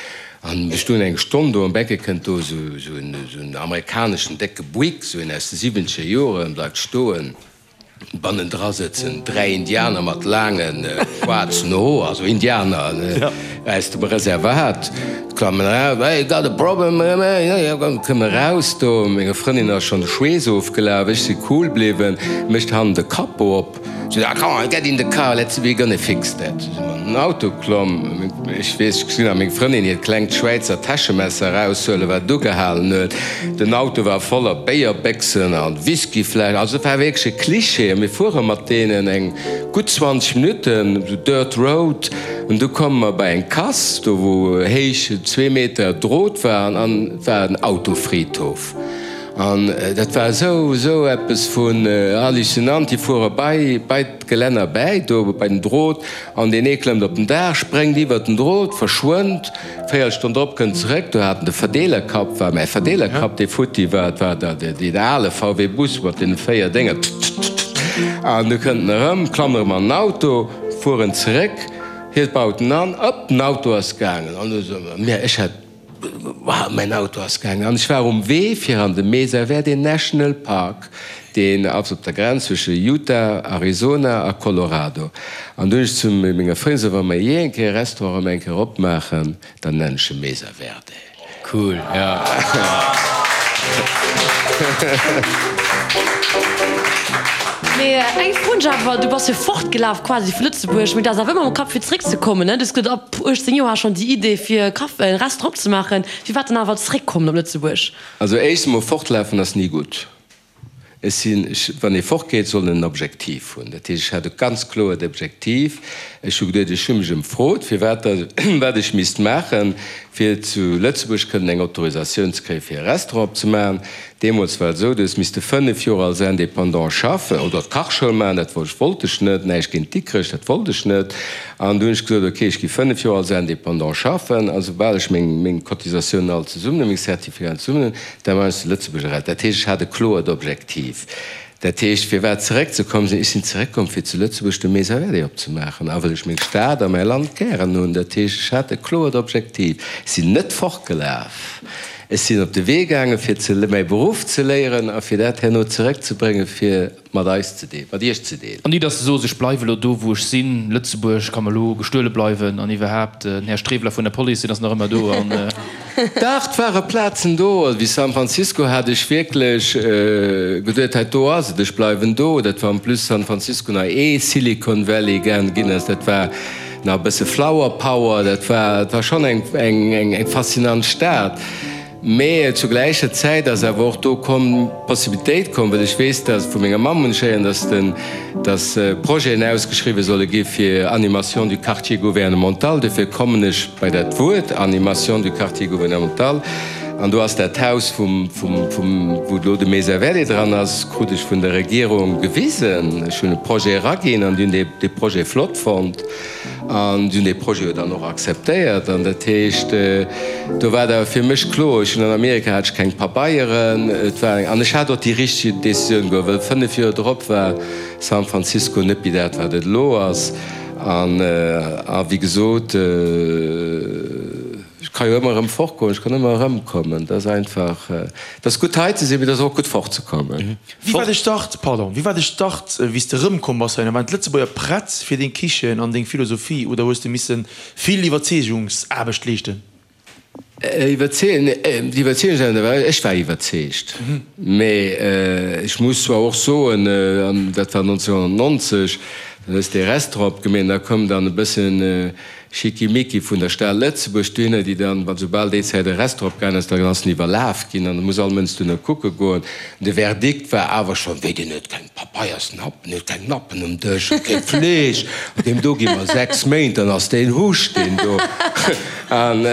Speaker 3: an ech stoen eng Stonn do, an Becke kënnt do esou esou en esou en amerikaneschen décke Buick, esou een aus de siwwenzeger Joren, bleift stoen. Bannendra sëtzen 3 Indianer mat laange schwaarzen Hoer, also Indianer aus dem Reservat, klammen eraus, Hey, got a problem? Kënne eraus do, menger Frëndin ass schonn de Schweess ofgelaf, ech si cool bliwwen, mécht hannen de Capot op, sot, Ah, come on, get in the car, let's, we're gonna fix that. an den Auto klomm. Ech weess, ech gesinn nach meng Frëndin hiert klengt Schwäizer Täschemesser eraushuelen, wat et ugehalen huet. Den Auto war voller Béierbéchsen a Whiskyfläschen. Also et war wierklech e Klischee. A mir fuere mat deenen eng gutt 20 Minutten, esou Dirt Road, an du komme mer bei eng Kass, do wou héich zwee Meter Drot war, an et war en Autofriedhof. An dat war esou, esou eppes vun hallucinant. Déi fuere bei, bei d'Gelänner bäi, do bei den Drot, an deen ee klëmmt op den Daach, spréngt iwwert den Drot, verschwënnt. Véierelstonn drop kënnt zeréck, do hat en de Verdeelerkapp, war mäi Verdeelerkapp, dee futti war, et war da deen ale VW Bus mat deene 4 Dénger, ttt-ttt-ttt, an du kënnt en erëm, klammt erëm an den Auto, fueren zeréck, hie baut en an, op, den Auto ass gaangen. An du so, mä ech hat, Wow, mäin Auto ass gaangen. An ech war um Wee fir an de Mesa Verde National Park, deen ass op der Grenz zwësche Utah, Arizona a Colorado. An du hunn ech zu menger Frëndin gesot, wa mer jee eng Kéier e Restaurant erëm eng Kéier opmaachen, dann nennen ech e Mesa Verde.
Speaker 2: Cool, ja.
Speaker 4: Mee eng Fro hunn ech awer, Du bass jo fortgelaf quasi vu Lëtzebuerg, mee du has awer ëmmer am Kapp fir zeréckzekommen, ne? Du hues gesot, ab 18 Joer has schonn déi Idee fir e Café, e Restaurant opzemaachen. Firwat dann awer zeréckkommen op Lëtzebuerg?
Speaker 3: Also éischt emol, fortlafen ass ni gutt. Ech sinn, ech, wann ee fortgeet, soll en en Objektiv hunn. Dat heescht, ech hat e ganz kloert Objektiv. Ech hu geduet, ech hu mech emfrot, firwat da, wat ech misst maachen, fir zu Lëtzebuerg kënnen eng Autorisatioun ze kréien, fir e Restaurant opzemaachen. Deemools war et esou, du hues misste 5 Joer als Indépendant schaffen oder d'Kachschoul maachen. Dat wollt ech net, näischt géint Dikrech, dat wollt ech net. An du hunn ech gesot, ok, ech gi 5 Joer als Indépendant schaffen a soubal ech meng meng Cotisatiounen all zesummen hunn, meng Certificaten zesummen hunn, da maachen ech de Lëtzebuerger Rad. Dat heescht, ech hat e kloert Objektiv. Dat heescht, firwat zeréckzekommen sinn? Ech sinn zeréckkomm, fir zu Lëtzebuerg de Maison Relais opzemaachen a well ech meng Stad a mäi Land gären hunn. Dat heescht, ech hat e kloert Objektiv. Ech sinn net fortgelaf. Ech sinn op de Wee gaangen, fir ze mäi Beruff ze léieren a fir dat herno zeréckzebréngen, fir mat eis ze deelen, mat iech ze deelen.
Speaker 6: An ni, dass se soos, ech bleiwe lo do, wou ech sinn, Lëtzebuerg ka mer lo gestuele bleiwen an iwwerhaapt, den Här Streweler vun der Police, deen ass nach ëmmer do an.
Speaker 3: Dach, 't ware Plazen do. Also wéi San Francisco hat ech wierklech geduet, hei do ass et, ech bleiwen do. Dat war en plus San Francisco nach ee Silicon Valley ginn ass, dat war nach e bësse Flower Power, dat war, et war schonn eng, eng, eng faszinant Stad. Mee zu gläicher Zäit ass awer och do komm, d'Possibilitéit komm, well ech weess, dass, vu menger Mamm hunn ech héieren, dass den, dass Projeten ausgeschriwwen solle gi fir Animation du quartier gouvernemental. Dofir kommen ech bei dat Wuert Animation du quartier gouvernemental. An do ass dat Haus vum, vum, vum, wou elo de Mesa Verde dran ass, krut ech vun der Regierung gewisen. Ech hunn e Projet eraginn an déi hunn dee, dee Projet flott fonnt. An si hunn dee Projet jo dann och akzeptéiert. An dat heescht, do war et awer fir mech kloer, ech hunn an Amerika hat ech keng Pabeieren, et war eng, an ech hat och déi richteg Decisioun geholl, well 5 Joer drop war San Francisco net méi dat, wat et elo ass. An, a wéi gesot, ech ka jo ëmmer erëm fortgoen, ech kann ëmmer erëmkommen. Dat ass einfach, et ass gutt hei ze sinn, mee et ass och gutt fortzekommen.
Speaker 5: Wéi war de Start, pardon, wéi war de Start, wéi s de erëmkomm bass heihinner? Waren d'Lëtzebuerger prett fir deng Kichen an deng Philosophie oder hues de misse vill Iwwerzeegungsaarbecht leeschten?
Speaker 3: Iwwerzeegen, d'Iwwerzeegungsaarbecht, ech war iwwerzeegt, mee ech muss zwar och soen, an dat war 1990, dann hues de e Restaurant opgemeet an da koum dann e bëssen Schickimicki vun der Stad Lëtzebuerg dohinner, déi dann, well soubal déi Zäit e Restaurant opgaangen ass, dann ass en iwwerlaf ginn an da muss all Mënsch dohinner kucke goen. De Verdikt war awer schonn, Wéi, deen huet keng Papeiersnappen, huet keng Nappen um Dësch, huet kee Fleesch, deem do gi mer 6 Méint, dann ass deen Huscht, deen do. An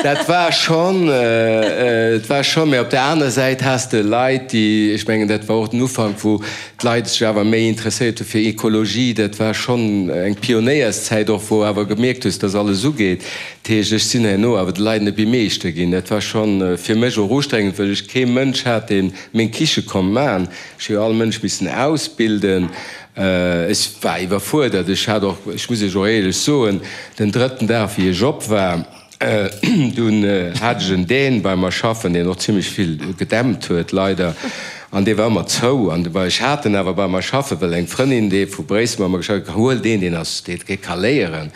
Speaker 3: dat war schonn, et war schonn, mä op der aner Säit has de Leit, déi, ech mengen, dat war och den Ufank, wou d'Leit sech awer méi interesséiert hu fir Ekologie. Dat war schonn eng Pionéierszäit och, wou awer gemierkt hues, dass alles ugeet. Dat heescht, ech sinn herno awer de Leit net méi Meeschter ginn. Dat war schonn fir mech och ustrengend, well ech kee Mënsch hat, dee meng Kiche konnt maachen. Ech hu jo all Mënsch missen ausbilden. Ech war iwwerfuerdert. Ech hat och, ech muss Iech och éierlech soen, den drëtten Dag, wéi ech op war, Dunn hat ech en Dän bei mer schaffen, deen och zimlech vill gedämpt huet, leider, an dee war ëmmer zou. An ech hat en awer bei mer schaffen, well eng Frëndin, déi vu Bréissel bei mer geschafft huet, huel deen, deen ass, dee ka léieren.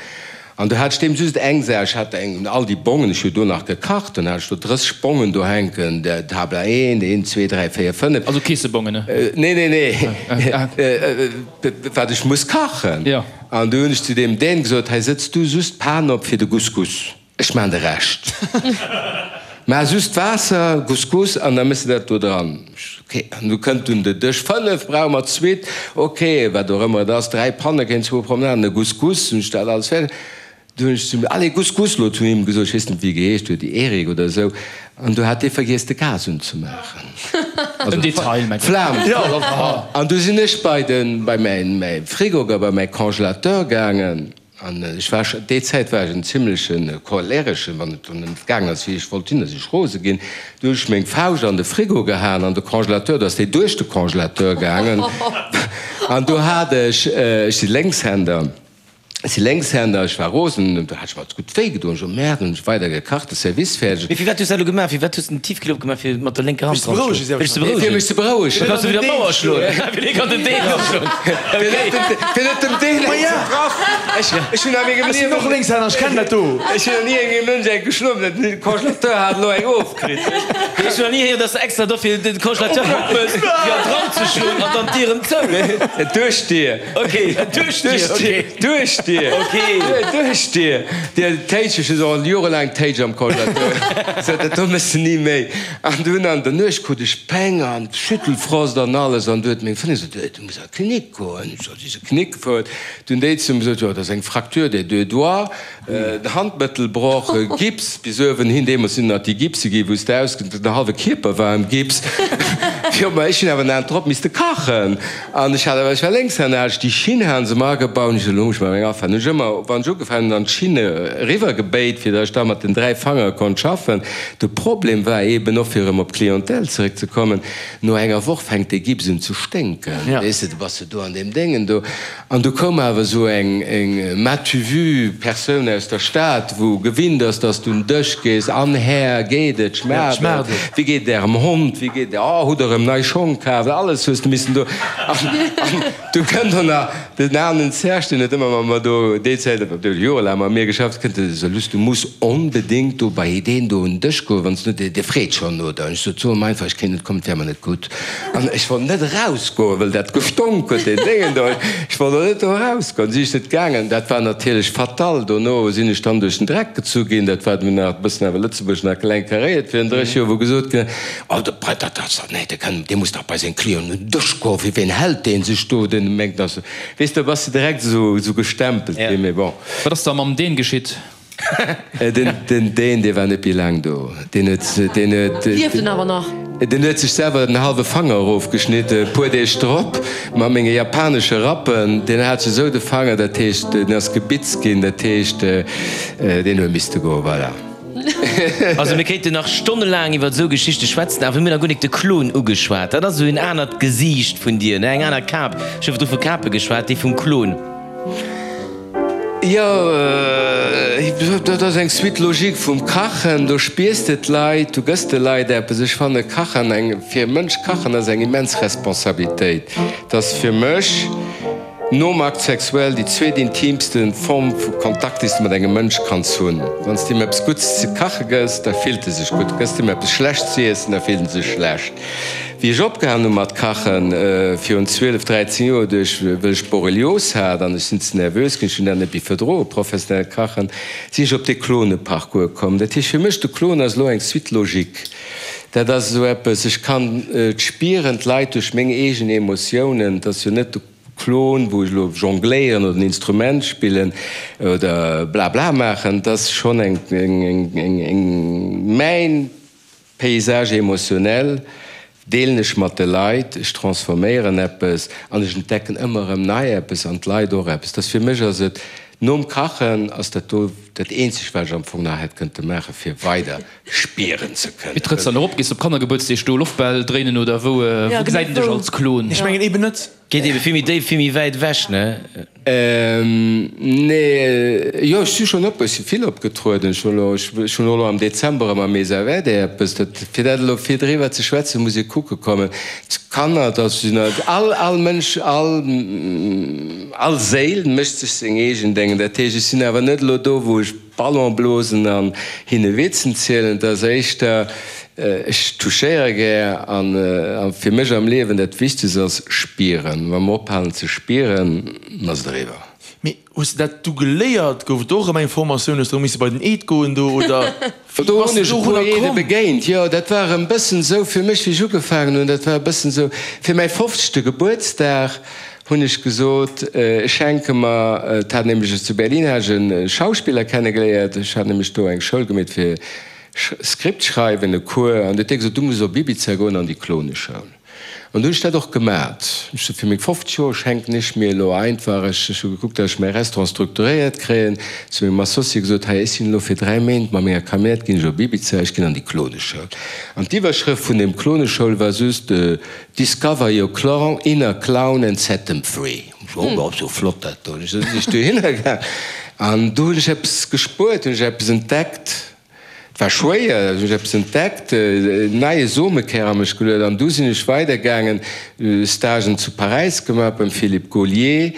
Speaker 3: An do hat ech deem just eng Saach, ech hat eng, all déi Bongen, ech hu do nach gekacht, dann hat ech do 30 Bongen do hänken, Tabla 1, 1, 2, 3, 4, 5.
Speaker 6: Also Keessebongen, ne?
Speaker 3: Nee, nee, nee, wat ech muss kachen. An du hunn ech zu deem Dän gesot, hei sëtz du just d'Pan op fir de Couscous, ech maan de Rescht. Maach just d'Waasser, Couscous, an da méchs de dat do dran. Ok, an du kënnt dunn de Dësch 5, brauche mer d'Suite, ok, wat och ëmmer et ass, 3 Pannekéin, zwou Promenaden, e Couscous, hunn ech dat alles fäerdeg. Du hunn ech zum, allez Couscous lo zu him gesot, ech weess net wéi e geheescht huet, Eric oder esou, an du hat dee vergiess de Gas unzemaachen, also d'Flam, an du sinn ech bei den, bei mäin Frigo, bei mäi Congélateur gaangen. An ech war scho, déi Zäit war ech en zimleche Cholereschen, wann et dann net gaangen ass, wéi ech wollt hunn, da sinn ech rose ginn. Du hunn ech meng Fauscht an de Frigo gehaen, an de Congélateur, do ass déi duerch de Congélateur gaangen. An do hat ech, ech si Lénkshänder, ech si Lénkshänder, ech war rosen, do hat ech mer gutt wéi gedoen. Ech sot, Merde, hunn ech weider gekacht, de Service fäerdeg.
Speaker 2: Mee firwat hues du dat elo gemaach? Firwat hues de den Tiefkühler opgemaach fir mat der lénker Hand dran ze schloen?
Speaker 3: Fir dech ze berouegen? Fir mech ze berouegen.
Speaker 2: Da kanns du wieder d'Mauer schloen. Fir dee kann den Deen och schloen.
Speaker 3: Fir net dem Deen eng ze treffen. Ech hunn a mengem
Speaker 5: Ech sinn och Lénkshänner, ech kennen dat do.
Speaker 3: Ech hunn nach ni engem Mënsch eng geschloen, mä den Congélateur hat elo eng ofkritt.
Speaker 2: Ech hunn nach ni héieren, dass de extra dofir den Congélateur opmëss fir dran ze schloen an dann d'Dier erëm zou.
Speaker 3: Duerch d'Dier.
Speaker 2: Ok, duerch d'Dier, ok.
Speaker 3: Duerch d'Dier.
Speaker 2: Ok.
Speaker 3: Duerch d'Dier. Dir Téitsch, ech hu se och jorelaang Téitsch am Congélateur. Sot, dat do méchs de ni méi. An dunn an der Nuecht krut ech Péng an Schüttelfrost an alles. An du huet meng Frëndin gesot, du muss an d'Klinik goen. Ech sot, si se Knick gefuer. Du hunn déi zu mir gesot, jo, dat ass eng Fracture des deux doigts, den Handmëttelbroch, Gips bis uewen hin. Deemools sinn nach déi Gipse gi wou s de aus, den hallwe Kierper war am Gips. Jo, ma ech hunn awer den Abend drop misste kachen. An ech hat awer, ech war Lénkshänner, hat ech déi Schinn hane se mer agebaut. Hunn ech gesot, elo muss ech mer eng afalen. Hunn ech ëmmer, wann ech ugefaangen hunn, an d'Schinne eriwwer gebéit, fir datt ech da mat den 3 Fangere konnt schaffen. De Problem war eeben och, fir erëm op d'Clientèle zeréckzekommen, no enger Woch fänkt dee Gips un ze sténken, weess de, du bass jo do an deem Déngen do. An du koum awer esou eng, eng m'as-tu vu Persoun aus der Stad, wou gewinnt ass, dass du un Dësch gees, An Här, geet et, schmaacht et, wéi geet et Ärem Hond, wéi geet et, oh, hutt Der erëm nei Schong kaf, alles hues de missen do. An du kënnt och nach den aneren Serge, deen huet ëmmer mat mer do déi Zäit, deen huet jorelaang mat mir geschafft, kënnt e sou, Luss, du muss onbedéngt do bei deen do un den Dësch goen, wann s du net, dee freet schonn no der. An ech sot, So em einfach, ech kéint net kommen, et wär mer net gutt. An ech wollt net erausgoen, well dat gestonk huet, deen Déngen do. Ech wollt och net do erausgoen. Si ech net gaangen. Dat war natierlech fatal. Dono sinn ech dann duerch den Dreck gezu ginn. Dat war dunn nach e bëssen awer Lëtzebuerg nach kleng karéiert virun 30 Joer, wou gesot ginn ass, Oh, de Brett, dat ass dach, nee, dee kann, dee muss dach bei seng Clienten un den Dësch goen. Fir wien hält dee sech do? Deen mengt, dass, weess de, da bass de direkt esou, esou gestempelt ginn. Mee bon.
Speaker 6: Wat ass da mam Deen geschitt?
Speaker 3: Den Deen, dee war net méi laang do. Deen huet, deen huet.
Speaker 4: Lieft en awer nach?
Speaker 3: Deen huet sech selwer den hallwe Fanger erofgeschnitt, e puer Deeg drop, mat menge japanesche Rappen. Deen hat sech esou de Fanger, dat heescht, deen ass gebitzt ginn, dat heescht, deen huet misste goen, voilà.
Speaker 2: Also mir kéinten nach stonnelaang iwwer esou Geschichte schwätzen, awer mir hunn nach guer nik de Klon ugeschwat. Dat ass esou en anert Gesiicht vun dir, ne, eng aner Kap. Ech hu virdru vu Kape geschwat, déi vum Klon.
Speaker 3: Jo, dat ass eng Suite logique vum Kachen. Do spiers de d'Leit, du gëss de Leit eppes. Ech fanne Kachen eng, fir e Mënsch kachen ass eng immens Responsabilitéit. Et ass fir mech nom Acte sexuel déi zweet intimste Form vu Kontakt, déi s de mat engem Mënsch kanns hunn. Wann s de him eppes Gutts ze kache gëss, da fillt e sech gutt. Gëss de him eppes Schlechtes ze iessen, da fillt en sech schlecht. Wéi ech opgehalen hu mat kachen, virun 12, 13 Joer, duerch wëll ech Borrelios hat an ech sinn ze nervös ginn, ech hunn dat net méi verdroen, professionellt Kachen, sinn ech op dee Klone-Parcours komm. Dat heescht fir mech, de Klon ass elo eng Suite logique. Dat ass esou eppes, ech kann et spieren, d'Leit duerch meng eegen Emotiounen, et ass jo net de Klon, wou ech elo jongléieren oder en Instrument spillen oder blabla maachen, et ass schonn eng, eng, eng, eng, mäin Paysage émotionnel deelen ech mat de Leit, ech transforméieren eppes an ech entdecken ëmmer erëm nei eppes an d'Leit och eppes. Dass fir mech ass et, nom Kachen ass dat do dat eenzegt wat ech am Fong nach hätt kënnte maachen, fir weider spieren ze
Speaker 6: kënnen. Wéi trëtts dann erop? Gees de op Kannergebuertsdeeg do Loftbäll dréinen oder wou gesäit een dech als Klon?
Speaker 5: Ech mengen eben net.
Speaker 2: Geet ebe vill méi déif, vill méi wäit ewech, ne?
Speaker 3: Nee, jo, ech si schonn op, ech si vill opgetrueden. Ech hunn elo, ech hunn och elo am Dezember erëm am Mesa Verde eppes. Dat, fir dat elo fir driwwer ze schwätzen, muss ee kucke kommen. D'Kanner, dat sinn all, all Mënsch, all, all Séil mécht sech seng eegen Déngen. Dat heescht, ech sinn awer net elo do, wou ech Ballon blosen an hinne Witzen zielen. Et ass éischter, ech touchéiere gär an fir mech am Liewen dat Wichtegst ass spieren. Wa mer ophalen ze spieren, ass et eriwwer.
Speaker 5: Mee hues de dat du geléiert? Gouf et do och erëm eng Formatioun? Hues de erëm misse bei den Eed goen do oder wéi
Speaker 3: Do
Speaker 5: bass
Speaker 3: hunn
Speaker 5: de
Speaker 3: ech e puer
Speaker 5: dorunner
Speaker 3: Eede
Speaker 5: komm?
Speaker 3: begéint, jo. Dat war erëm bëssen esou fir mech, wéi ech ugefaangen hunn, dat war e bëssen esou fir mäi fofzegte Gebuertsdag hunn ech gesot, ech schenke mer, et hat nämlech ech zu Berlin hat ech e Schauspiller kennegeléiert, ech hat nämlech do eng Schoul gemeet fir Script schreiwen, e Cours, an du huet dee gesot, du muss op Ibiza goen an déi Kloneschoul. An du hunn ech dat och gemat. Ech sot, fir meng 50 Joer schenken ech mir elo einfach, ech hu gekuckt, datt ech mäi Restaurant strukturéiert kréien, zu mengem Associé gesot, hei ech sinn elo fir 3 Méint mat menger Camionnette ginn ech op Ibiza, ech ginn an déi Kloneschoul. An d'Iwwerschrëft vun deem Kloneschoul war just, Discover your clown, inner clown and set them free. Oh, dat ass jo flott dat do. Sinn ech dohinner gaang an do hunn ech eppes gespuert, hunn ech eppes entdeckt. Et war schwéier, hunn ech eppes entdeckt, en neie Somekär a mech geluet an du sinn ech weidergaangen, Stagen zu Paräis gemaach beim Philippe Gaulier.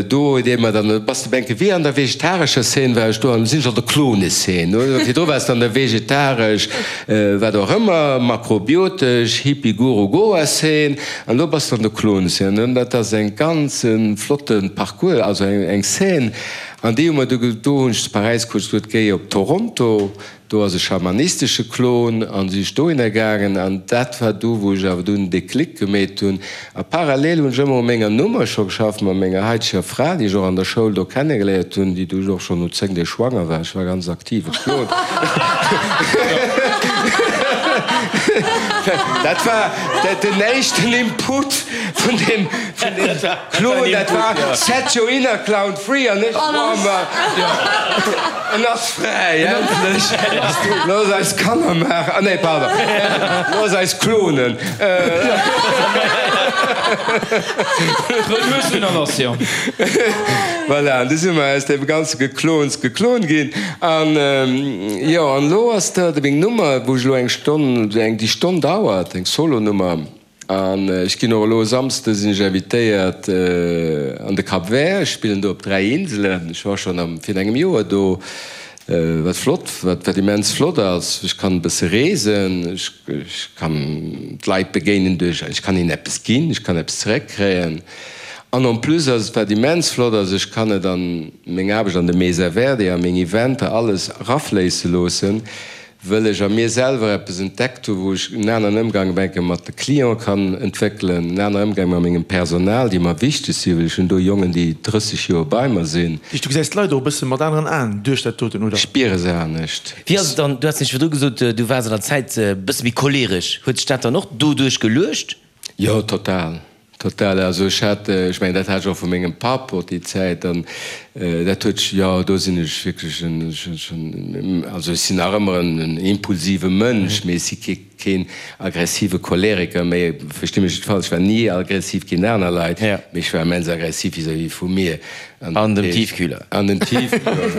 Speaker 3: Do huet ee mer dann, bass de benke wéi an der vegetarescher Szene war ech do an sinn ech an der Klone-Szene. Virdru waars de an der vegetaresch, wat och ëmmer, makrobiotesch, Hippie-Guru-Goa-Szene an elo bass de an der Klone-Szene. An dat ass eng ganz flotte Parcours, also eng Szene an déi hu mer du, do hunn ech zu Paräis kuerz gesot, géi op Toronto. Do ass e schamanistesche Klon an si ech dohinner gaangen an dat war do wou ech awer dunn den Déclic gemeet hunn. A parallel hunn ech ëmmer u menger Nummer scho geschafft mat menger haiteger Fra, déi ech och an der Schoul do kennegeléiert hunn, déi du och schonn no 10 Deeg schwanger war. Ech war ganz aktive Klon. Dat war den éischten Input vun deem Klon, dat war Set your inner clown free an ech war mer. En ass fräi, endlech! Looss eis Kanner maachen, ah nee, pardon, looss eis klonen. Voilà, an du si mer aus deem ganze Geklons geklon ginn. An jo, an elo ass dat meng Nummer, wou ech elo eng Stonn, eng déi Stonn dauert, eng Solo-Nummer. An ech ginn och elo e Samsde sinn ech invitéiert an de Cap Vert. Ech spillen do op 3 Inselen. Ech war schonn am virun engem Joer do, wat flott, wat wat immens flott ass. Ech kann e bësse reesen, ech ech kann d'Leit begéinen duerch, ech kann hinnen eppes ginn, ech kann eppes zeréckkréien. An en plus ass et, wat immens flott ass, ech kann et an meng Aarbecht an de Mesa Verde, a meng Eventer, alles erafléisse loossen. Wëll ech a mir selwer eppes entdeckt hu wou ech en aneren Ëmgang enke mat de Cliente kann entwéckelen, en anere Ëmgang mat mengem Personal, déi mer wichteg sinn, well ech hunn do Jongen, déi 30 Joer bei mer sinn.
Speaker 5: Du gesäis d'Leit och e bësse mat aneren Aen duerch dat doten, oder?
Speaker 3: Ech spiere se anescht.
Speaker 2: Wéi ass et dann, du has nämlech virdru gesot, du waars an der Zäit e bësse méi choleresch, huet sech dat dann och doduerch geluecht?
Speaker 3: Jo, total. Total. Also ech hat, ech mengen dat hat ech och vu mengem Papp och déi Zäit an dat huet, jo do sinn ech wierklech en, also ech sinn nach ëmmer en impulsive Mënsch, mee ech si kee keen aggressive Choleriker méi, versti mech net falsch, ech war ni aggressiv géint aner Leit, mee ech war immens aggressiv vis-à-vis vu mir.
Speaker 2: An dem Tiefkühler.
Speaker 3: An dem Tiefkühler,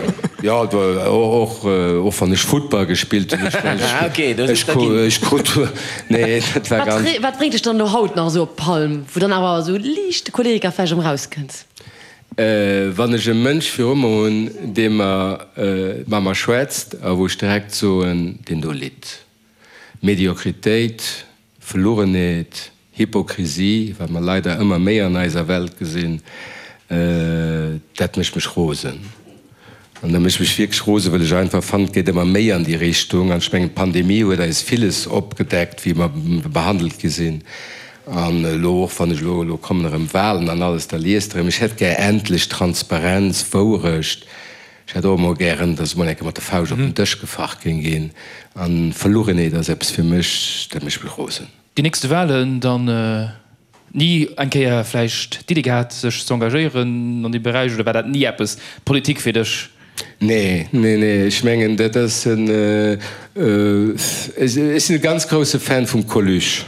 Speaker 3: jo, och, och wann ech Futtball gespillt hunn.
Speaker 2: Ah, okay, do sinn der ginn.
Speaker 3: Ech krut, nee, dat war ganz.
Speaker 4: Wat bréngt dech dann elo haut nach esou op d'Palm, wou dann awer esou liicht de Choleriker vläicht erëm erauskënnt?
Speaker 3: Wann ech e Mënsch viru mer hunn, dee mer, mat mer schwätzt a wou ech direkt soen, deen do litt. Mediokritéit, Verlugenheet, Hypokrisie, wat mer leider ëmmer méi an eiser Welt gesinn, dat mécht mech rosen. An dat mécht mech wierklech rosen, well ech einfach fannen, et geet ëmmer méi an déi Richtung. An ech mengen, d'Pandemie huet eis villes opgedeckt, wéi mer behandelt gi sinn. An elo och, wann ech elo, elo kommen erëm Wahlen an alles, da liest Der erëm, ech hätt gär endlech Transparenz, Wourecht. Ech hätt och emol gären, dass emol eng Kéier mat der Fauscht op den Dësch gefacht géing ginn. An Verlugenheet ass eppes fir mech, dat mécht mech rosen.
Speaker 6: Déi nächste Wahlen dann ni eng Kéier vläicht d'Idee gehat sech ze engagéieren an deem Beräich oder war dat ni eppes, Politik fir dech?
Speaker 3: Nee, nee, nee, ech mengen dat ass en, ech sinn e ganz grousse Fan vum Coluche.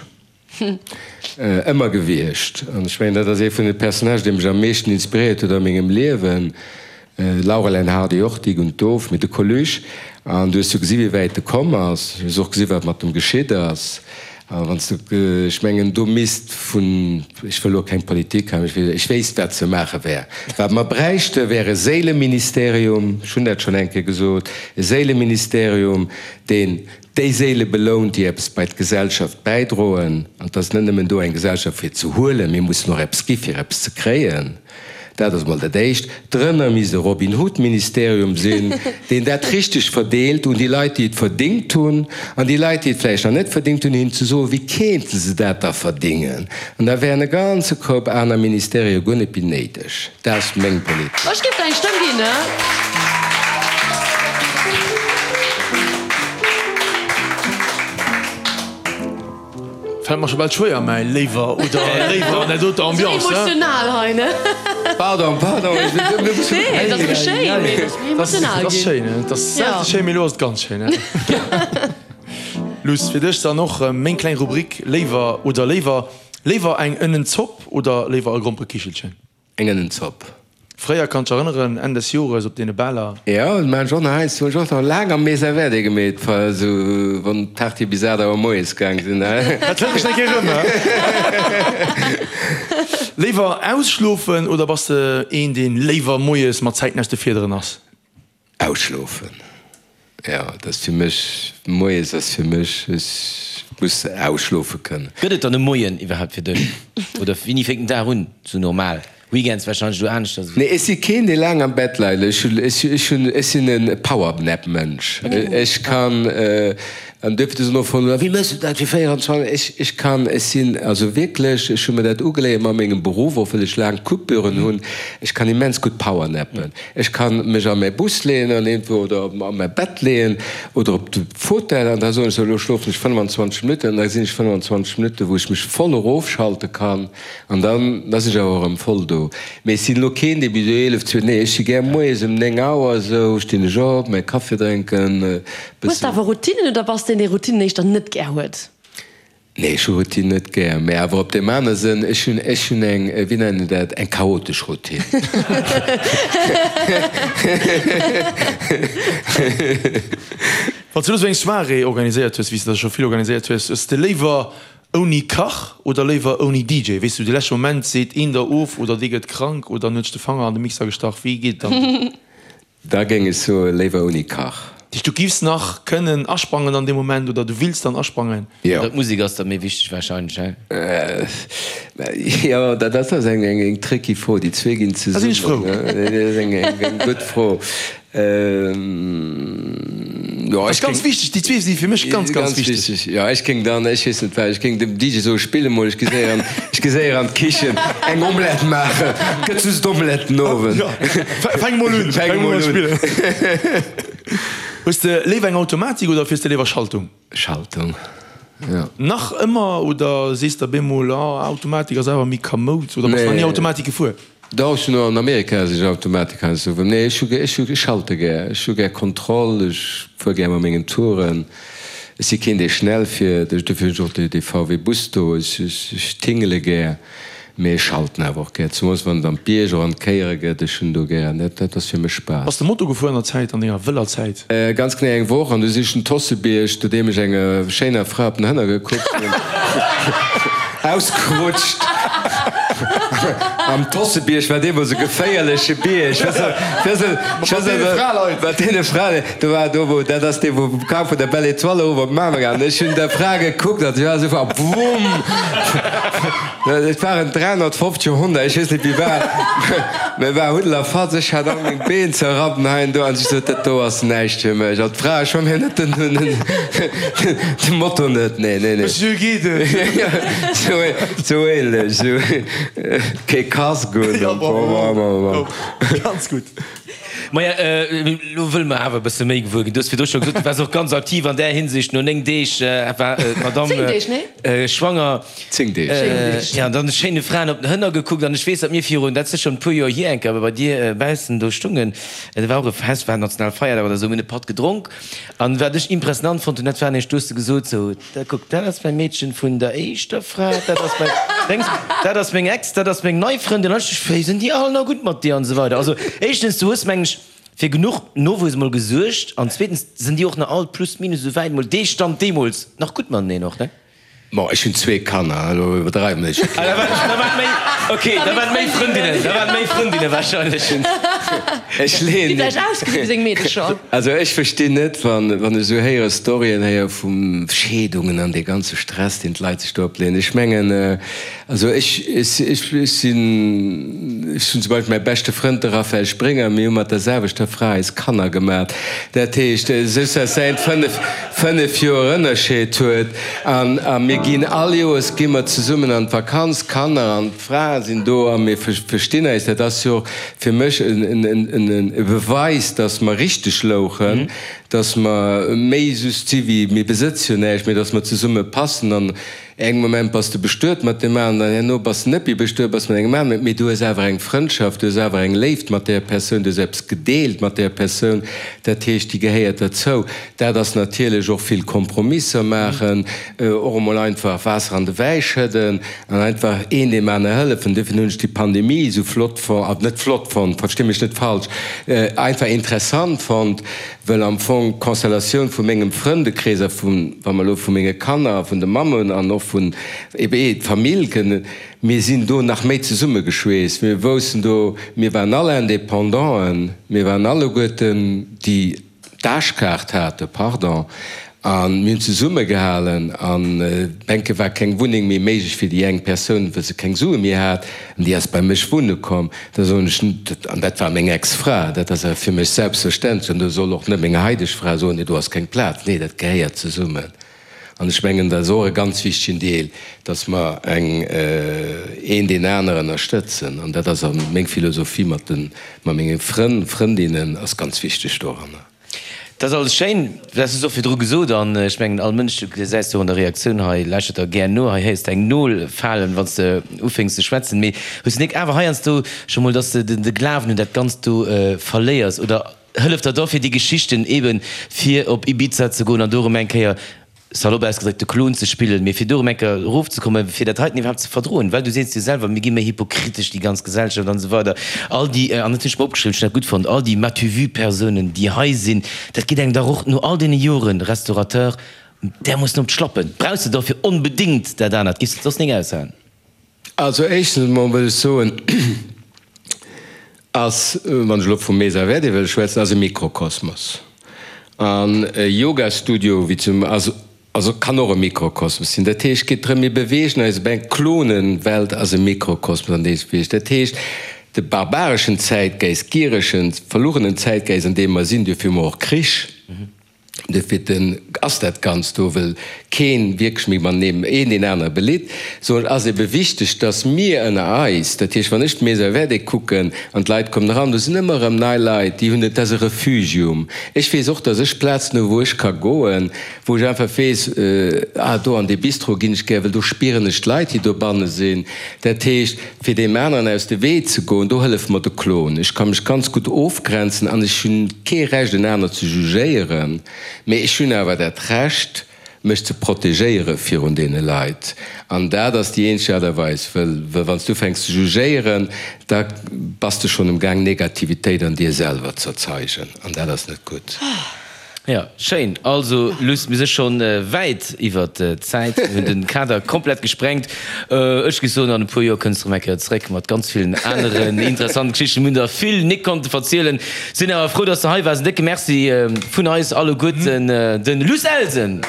Speaker 3: Ëmmer gewiescht. An ech mengen, dat ass ee vun de Personnagen, dee mech am meeschten inspiréiert huet a mengem Liewen. Laurel and Hardy och, Dick und Doof, mee de Coluche. An du hues jo gesi wéi wäit e komm ass. Du hues och gesi wat mat em geschitt ass. A wann s du, ech mengen, do misst vun, ech wëll elo keng Politik hei, mee ech wéisst wat ze maache wär. Wat mer bräichte wär e Séileministerium, ech hunn dat schonn eng Kéier gesot, e Séileministerium, deen déi Séile belount, déi eppes bei d'Gesellschaft bäidroen. An et ass net nëmmen do eng Gesellschaft fir ze huelen, mir mussen och eppes gi fir eppes ze kréien. Dat ass emol dat Éischt. Drënner misst e Robin Hood-Ministerium sinn, deen dat richteg verdeelt un déi Leit, déi et verdingt hunn, an déi Leit, déi et vläicht nach net verdingt hunn, hinnen ze soen, wéi kéinte se dat da verdingen. An da wären e ganze Koup aner Ministerië guer net méi néideg. Dat ass meng Politik.
Speaker 4: Ech géif der eng Stëmm ginn, ne?
Speaker 5: Fällt mer scho bal schwéier mäi léiwer oder léiwer an där doter Ambiance.
Speaker 4: Sou emotional hei, ne?
Speaker 3: Pardon, pardon, ech sinn e bëssen.
Speaker 4: Nee, et ass mol schéin, mee et ass méi emotional
Speaker 5: ginn. Et ass schéin, et ass selte schéin, mee elo ass et ganz schéin. Luss, fir dech dann och meng kleng Rubrik Léiwer oder léiwer. Léiwer eng Ënnenzopp oder léiwer e Gromperekichelchen?
Speaker 3: Eng Ënnenzopp.
Speaker 5: Fréier, kann dech erënneren, Enn des Jores op deene Baler.
Speaker 3: Jo, dat maan ech och nach heiansdo. Hunn ech och nach laang am Mesa Verde gemeet, esou wann d'Partye bis 8 Auer moies gaang sinn.
Speaker 5: Dat hëlt mech eng Kéier erëm, he? Léiwer ausschlofen oder bass de een, deen léiwer moies mat Zäiten aus de Fiederen ass?
Speaker 3: Ausschlofen, jo, dat ass fir mech, moies ass fir mech, ech muss ausschlofe kënnen.
Speaker 2: Gëtt et dann e Moien iwwerhaapt fir dech? Oder wéini fänkt den Dag un, sou normal? Weekends wahrscheinlech elo aneschters
Speaker 3: ewéi. Nee, ech si keen, dee laang am Bett leit. Ech hunn, ech hunn, ech sinn e Powernap-Mënsch. Ech kann, an duerfir du soen och voll, wéi méchs du dat fir 24, ech, ech kann, ech sinn also wierklech, ech hu mir dat ugeléiert mat mengem Beruff, och well ech laang Coupüren hunn, ech kann immens gutt powernappen. Ech kann mech a mäi Bus leeën an iergendwou oder a mäi Bett leeën oder op de Fauteuil an da soen ech, sou elo schlofen ech 25 Minutten an da sinn ech 25 Minutten, wou ech mech voll erofschalte kann an dann da sinn ech awer erëm voll do. Mee ech sinn elo keen, dee bis 11, 12, nee ech si gär moies ëm 9 Auer esou stinn ech op, mäi Kaffi drénken, e
Speaker 4: Hues de
Speaker 3: bëssen.
Speaker 4: awer Routinen oder bass de een, dee Routinen éischter net gär huet?
Speaker 3: Nee, ech hu Routine net gär, mä awer op deem anere Sënn, ech hunn, ech hunn eng, wéi nennen een dat, eng chaotesch Routine.
Speaker 5: Wann s du elo sou eng Soirée organiséiert hues, wéi s de der scho vill organiséiert hues, hues de léiwer ouni Kach oder léiwer ouni DJ? Weess du, de leschte Moment seet een der of oder dee gëtt krank oder en huet sech de Fanger an de Mixer gestach, wéi geet et dann?
Speaker 3: Da géing ech soe léiwer ouni Kach.
Speaker 5: Dat heescht, du giffs nach kënnen asprangen an deem Moment oder du wills dann asprangen?
Speaker 3: Jo.
Speaker 2: Oder d'Musek ass da méi wichteg wahrscheinlech, he?
Speaker 3: Jo, dat ass eng tricky Fro. Déi zwee ginn
Speaker 5: Da sinn ech frou.
Speaker 3: zesummen. Dat ass eng gutt Fro.
Speaker 5: Jo, ech ganz wichteg, déi zwee si fir mech ganz, ganz wichteg.
Speaker 3: Jo, ech géing dann, ech weess net wat, ech géing dem DJ soen, spill emol, ech gi séier an, ech gi séier an d'Kichen eng Omelette maachen, gëtt just Omelette den Owend.
Speaker 5: Jo, fänk emol un, fänk emol un spillen. Hues de léiwer eng Automatik oder fiers de léiwer Schaltung?
Speaker 3: Schaltung, jo.
Speaker 5: Nach ëmmer oder sees de bemol, ah, Automatik ass awer méi kamoud oder bass nach ni Automatik gefuer?
Speaker 3: Dach, ech hunn och an Amerika sech Automatik heiansdo gefuer. Nee, ech hu ech hu ech schalte gär. Ech hu gär Kontroll, ech fuer gär mat mengen Touren. Ech si keen, dee schnell fiert. Ech dofir hunn ech och dee dee VW Bus do. Ech ech ech tingele gär, mee ech schalten awer och gär, zemools wann et an d'Bierg och an d'Kéiere gëtt. Ech hunn do gär, dat dat ass fir mech Spaass.
Speaker 5: Bass de Moto gefuer an der Zäit, an denger wëller Zäit?
Speaker 3: Ganz genee eng Woch, an du sinn ech den Tossebierg, nodeem ech enger schéiner Fra op den Hënner gekuckt hunn. Ausgerutscht am Tossebierg war deemools e geféierleche Bierg. Mat deene Fraleit. Do war do wou, dat ass dee wou kam vun der Belle Etoile erof op Mamer an ech hunn der Fra gekuckt an si war esou a wumm! Et waren 350 Honner, ech weess net wéi war, mä war Huddel a Fatz. Ech hat all meng Been zerrappen hei an do an ech sot, dat do ass näischt fir mech. An d'Fra, ech hu mir net den, de Moto net, nee, nee, nee.
Speaker 5: Monsieur geet et?
Speaker 3: Sou ähnlech, sou kee Casque un.
Speaker 5: Ja, bravo, ganz gutt.
Speaker 2: Maja, elo wëlle mer awer e bësse méi gewuer ginn. Du hues virdru scho gesot, du waars och ganz aktiv an där Hinsicht. No 9 Deeg war d'Madame schwanger.
Speaker 3: 10 Deeg.
Speaker 2: Jo, an dann schéine Fraen op den Hënner gekuckt. An ech weess, datt mir virun, dat ass schonn e puer Joer hier, eng Kéier bei dir baussen do stungen. Et war och e Fest, war Nationalfeierdag oder esou, mir hunn e Patt gedronk. An wat ech impressionant fonnt hunn, dat war nämlech, du hues de gesot, sou, da kuck, dat ass mäi Meedchen vun der éischter Fra, dat ass mäi Déngs, dat ass meng Ex, dat ass meng nei Frëndin, an ech, wéi sinn déi all nach gutt mat dir an esou weider. Also éischtens, du hues, meng ech, fir genuch Nowuess emol gesuergt an zweetens sinn déi och nach all plus minus esou wäit emol dee Stand deemools nach gutt mateneen och, ne?
Speaker 3: Bon, ech hunn zwee Kanner, elo iwwerdreiwe mer net.
Speaker 2: Ah, da waren, da waren méi, ok, da waren méi Frëndinnen, da waren méi Frëndinne wahrscheinlech.
Speaker 3: Ech leeën.
Speaker 4: Déi vläicht ausgesinn wéi seng Meedecher.
Speaker 3: Also ech verstinn net, wann, wann ech esou héiere Storyen héiere vu Scheedungen an dee ganze Stress, deen d'Leit sech do opleeën. Ech mengen, also ech, ech, ech sinn, ech hunn zum Beispill mäi beschte Frënd, de Raphaël Springer, mir hu mat der selwechter Fra eis Kanner gemat. Dat heescht, soss ass säin 5, 5 Joer Ënnerscheed huet an a mir ginn all Joers gi mer zesummen an d'Vakanz, d'Kanner an d'Frae sinn do a mir verstinn eis. Dat ass jo och fir mech e Beweis, datt mer richteg louchen, datt mer méi just si wéi mir besëtze jo näischt, mee datt mer zesumme passen an Engem Moment bass de bestuet mat deem aneren, dann herno bass de net méi bestuet, bass mat engem aneren, mee du hues awer eng Frëndschaft, du hues awer eng Léift mat där Persoun, du hues eppes gedeelt mat där Persoun, dat heescht, déi gehéiert derzou. Dat ass natierlech och vill Kompromisser maachen, och emol einfach Waasser an de Wäi schëdden an einfach een deem anere hëllefen. Duerfir hunn ech déi Pandemie esou flott fonnt, net flott fonnt, versti mech net falsch, einfach interessant fonnt, Well am Fong d'Constellatioun vu mengem Frëndekrees a vun, wa mer elo vu menge Kanner a vun de Mammen an och vun ebe d'Famill kënnen, mir sinn do nach méi zesummegeschweesst. Mir woussen do, mir waren all Indépendanten, mir waren alleguerten déi d'Aarschkaart haten, pardon, a mir hunn zesummegehalen an enke war keng Wunneng méi méiglech fir déi eng Persoun, well se keng Sue méi hat an déi ass bei mech wunne komm. Da soen ech, an dat war meng Ex-Fra, dat ass awer fir mech selbstverständlech, an do soll och net meng haideg Fra soen, nee do ass keng Plaz. Nee, dat gehéiert zesummen. An ech mengen, dat ass och e ganz wichtegen Deel, dass mer eng, een deen aneren ënnerstëtzen. An dat ass a meng Philosophie mat de, mat menge Frënn, Frëndinnen ass ganz wichteg doranner.
Speaker 2: Dat ass alles schéin, dat hues du och virdru gesot an ech mengen all Mënsch, du gesäis jo an der Reaktioun hei, lauschtert der gär no, hei héiers de eng Nol falen, wann s de ufénks ze schwätzen, mee hues du nik awer heiansdo scho mol, dass de de Glawen un dat Ganzt do verléiers oder hëlleft der da fir déi Geschichten eben fir op Ibiza ze goen an do erëm eng Kéier Salopp ausgedréckt, de Klon ze spillen, mee fir do erëm eng Kéier erofzekommen, fir dat heiten iwwerhaapt ze verdroen, well du sees jo selwer, mir gi méi hypokritesch, déi ganz Gesellschaft an esou weider, all déi, an dat hunn ech mer opgeschriwwen, ech hunn dat gutt fonnt, all déi m'as-tu-vu-Persounen, déi hei sinn, dat geet engem dach och no all deene Joren Restaurateur därmoossen op d'Schlappen. Brauchs de dofir onbedéngt dat anert? Giffs de et soss nik aushalen?
Speaker 3: Also éischtens emol wëll ech soen, ass, wann ech elo vum Mesa Verde wëll schwätzen, ass e Mikrokosmos. An e Yogastudio wéi zum ass, also kann och e Mikrokosmos sinn. Dat heescht, et geet drëm, mir beweegen eis op eng Klonenwelt ass e Mikrokosmos an deem sech beweegt. Dat heescht, de barbareschen Zäitgeist, gieregen, verlugenen Zäitgeist an deem mer sinn, duerfir hu mer och Krich, Duerfir ass dat Ganzt do, wëll keen wierklech méi matenee een deen anere belitt. Sou et ass ebe wichteg, dass mir ënner eis, dat heescht wann ech d'Maison Verte kucken an d'Leit kommen eran, do sinn ëmmer erëm nei Leit, déi hunn, et ass e Refugium. Ech weess och, dass ech Plazen hu wou ech ka goen, wou ech einfach weess, ah do an dee Bistro ginn ech gär, well do spieren ech d'Leit, déi dobanne sinn. Dat heescht, Fir deem aneren aus de Wee ze goen, do hëlleft mer de Klon. Ech ka mech ganz gutt ofgrenzen an ech hunn kee Recht en aner ze jugéieren, mee ech hunn awer dat Recht mech ze protegéiere virun deene Leit. An dat ass déi eenzeg Aart a Weis, wëll wann s du ufänks ze jugéieren, da bass de schonn um Gaang Negativitéit an dir selwer z'erzeigen an dat ass net gutt.
Speaker 2: Jo, schéin. Also Luss, mir si schonn wäit iwwert d'Zäit, mir hunn den Kader komplett gesprengt. Ech géif soen, an e puer Joer kënns de rëm eng Kéier zréck mat ganz villen aneren interessanten Geschichten. Mir hunn der vill nik konnte verzielen. Sinn awer frou, dass de hei waars. En décke Merci vun eis alleguerten, den Luss Elsen!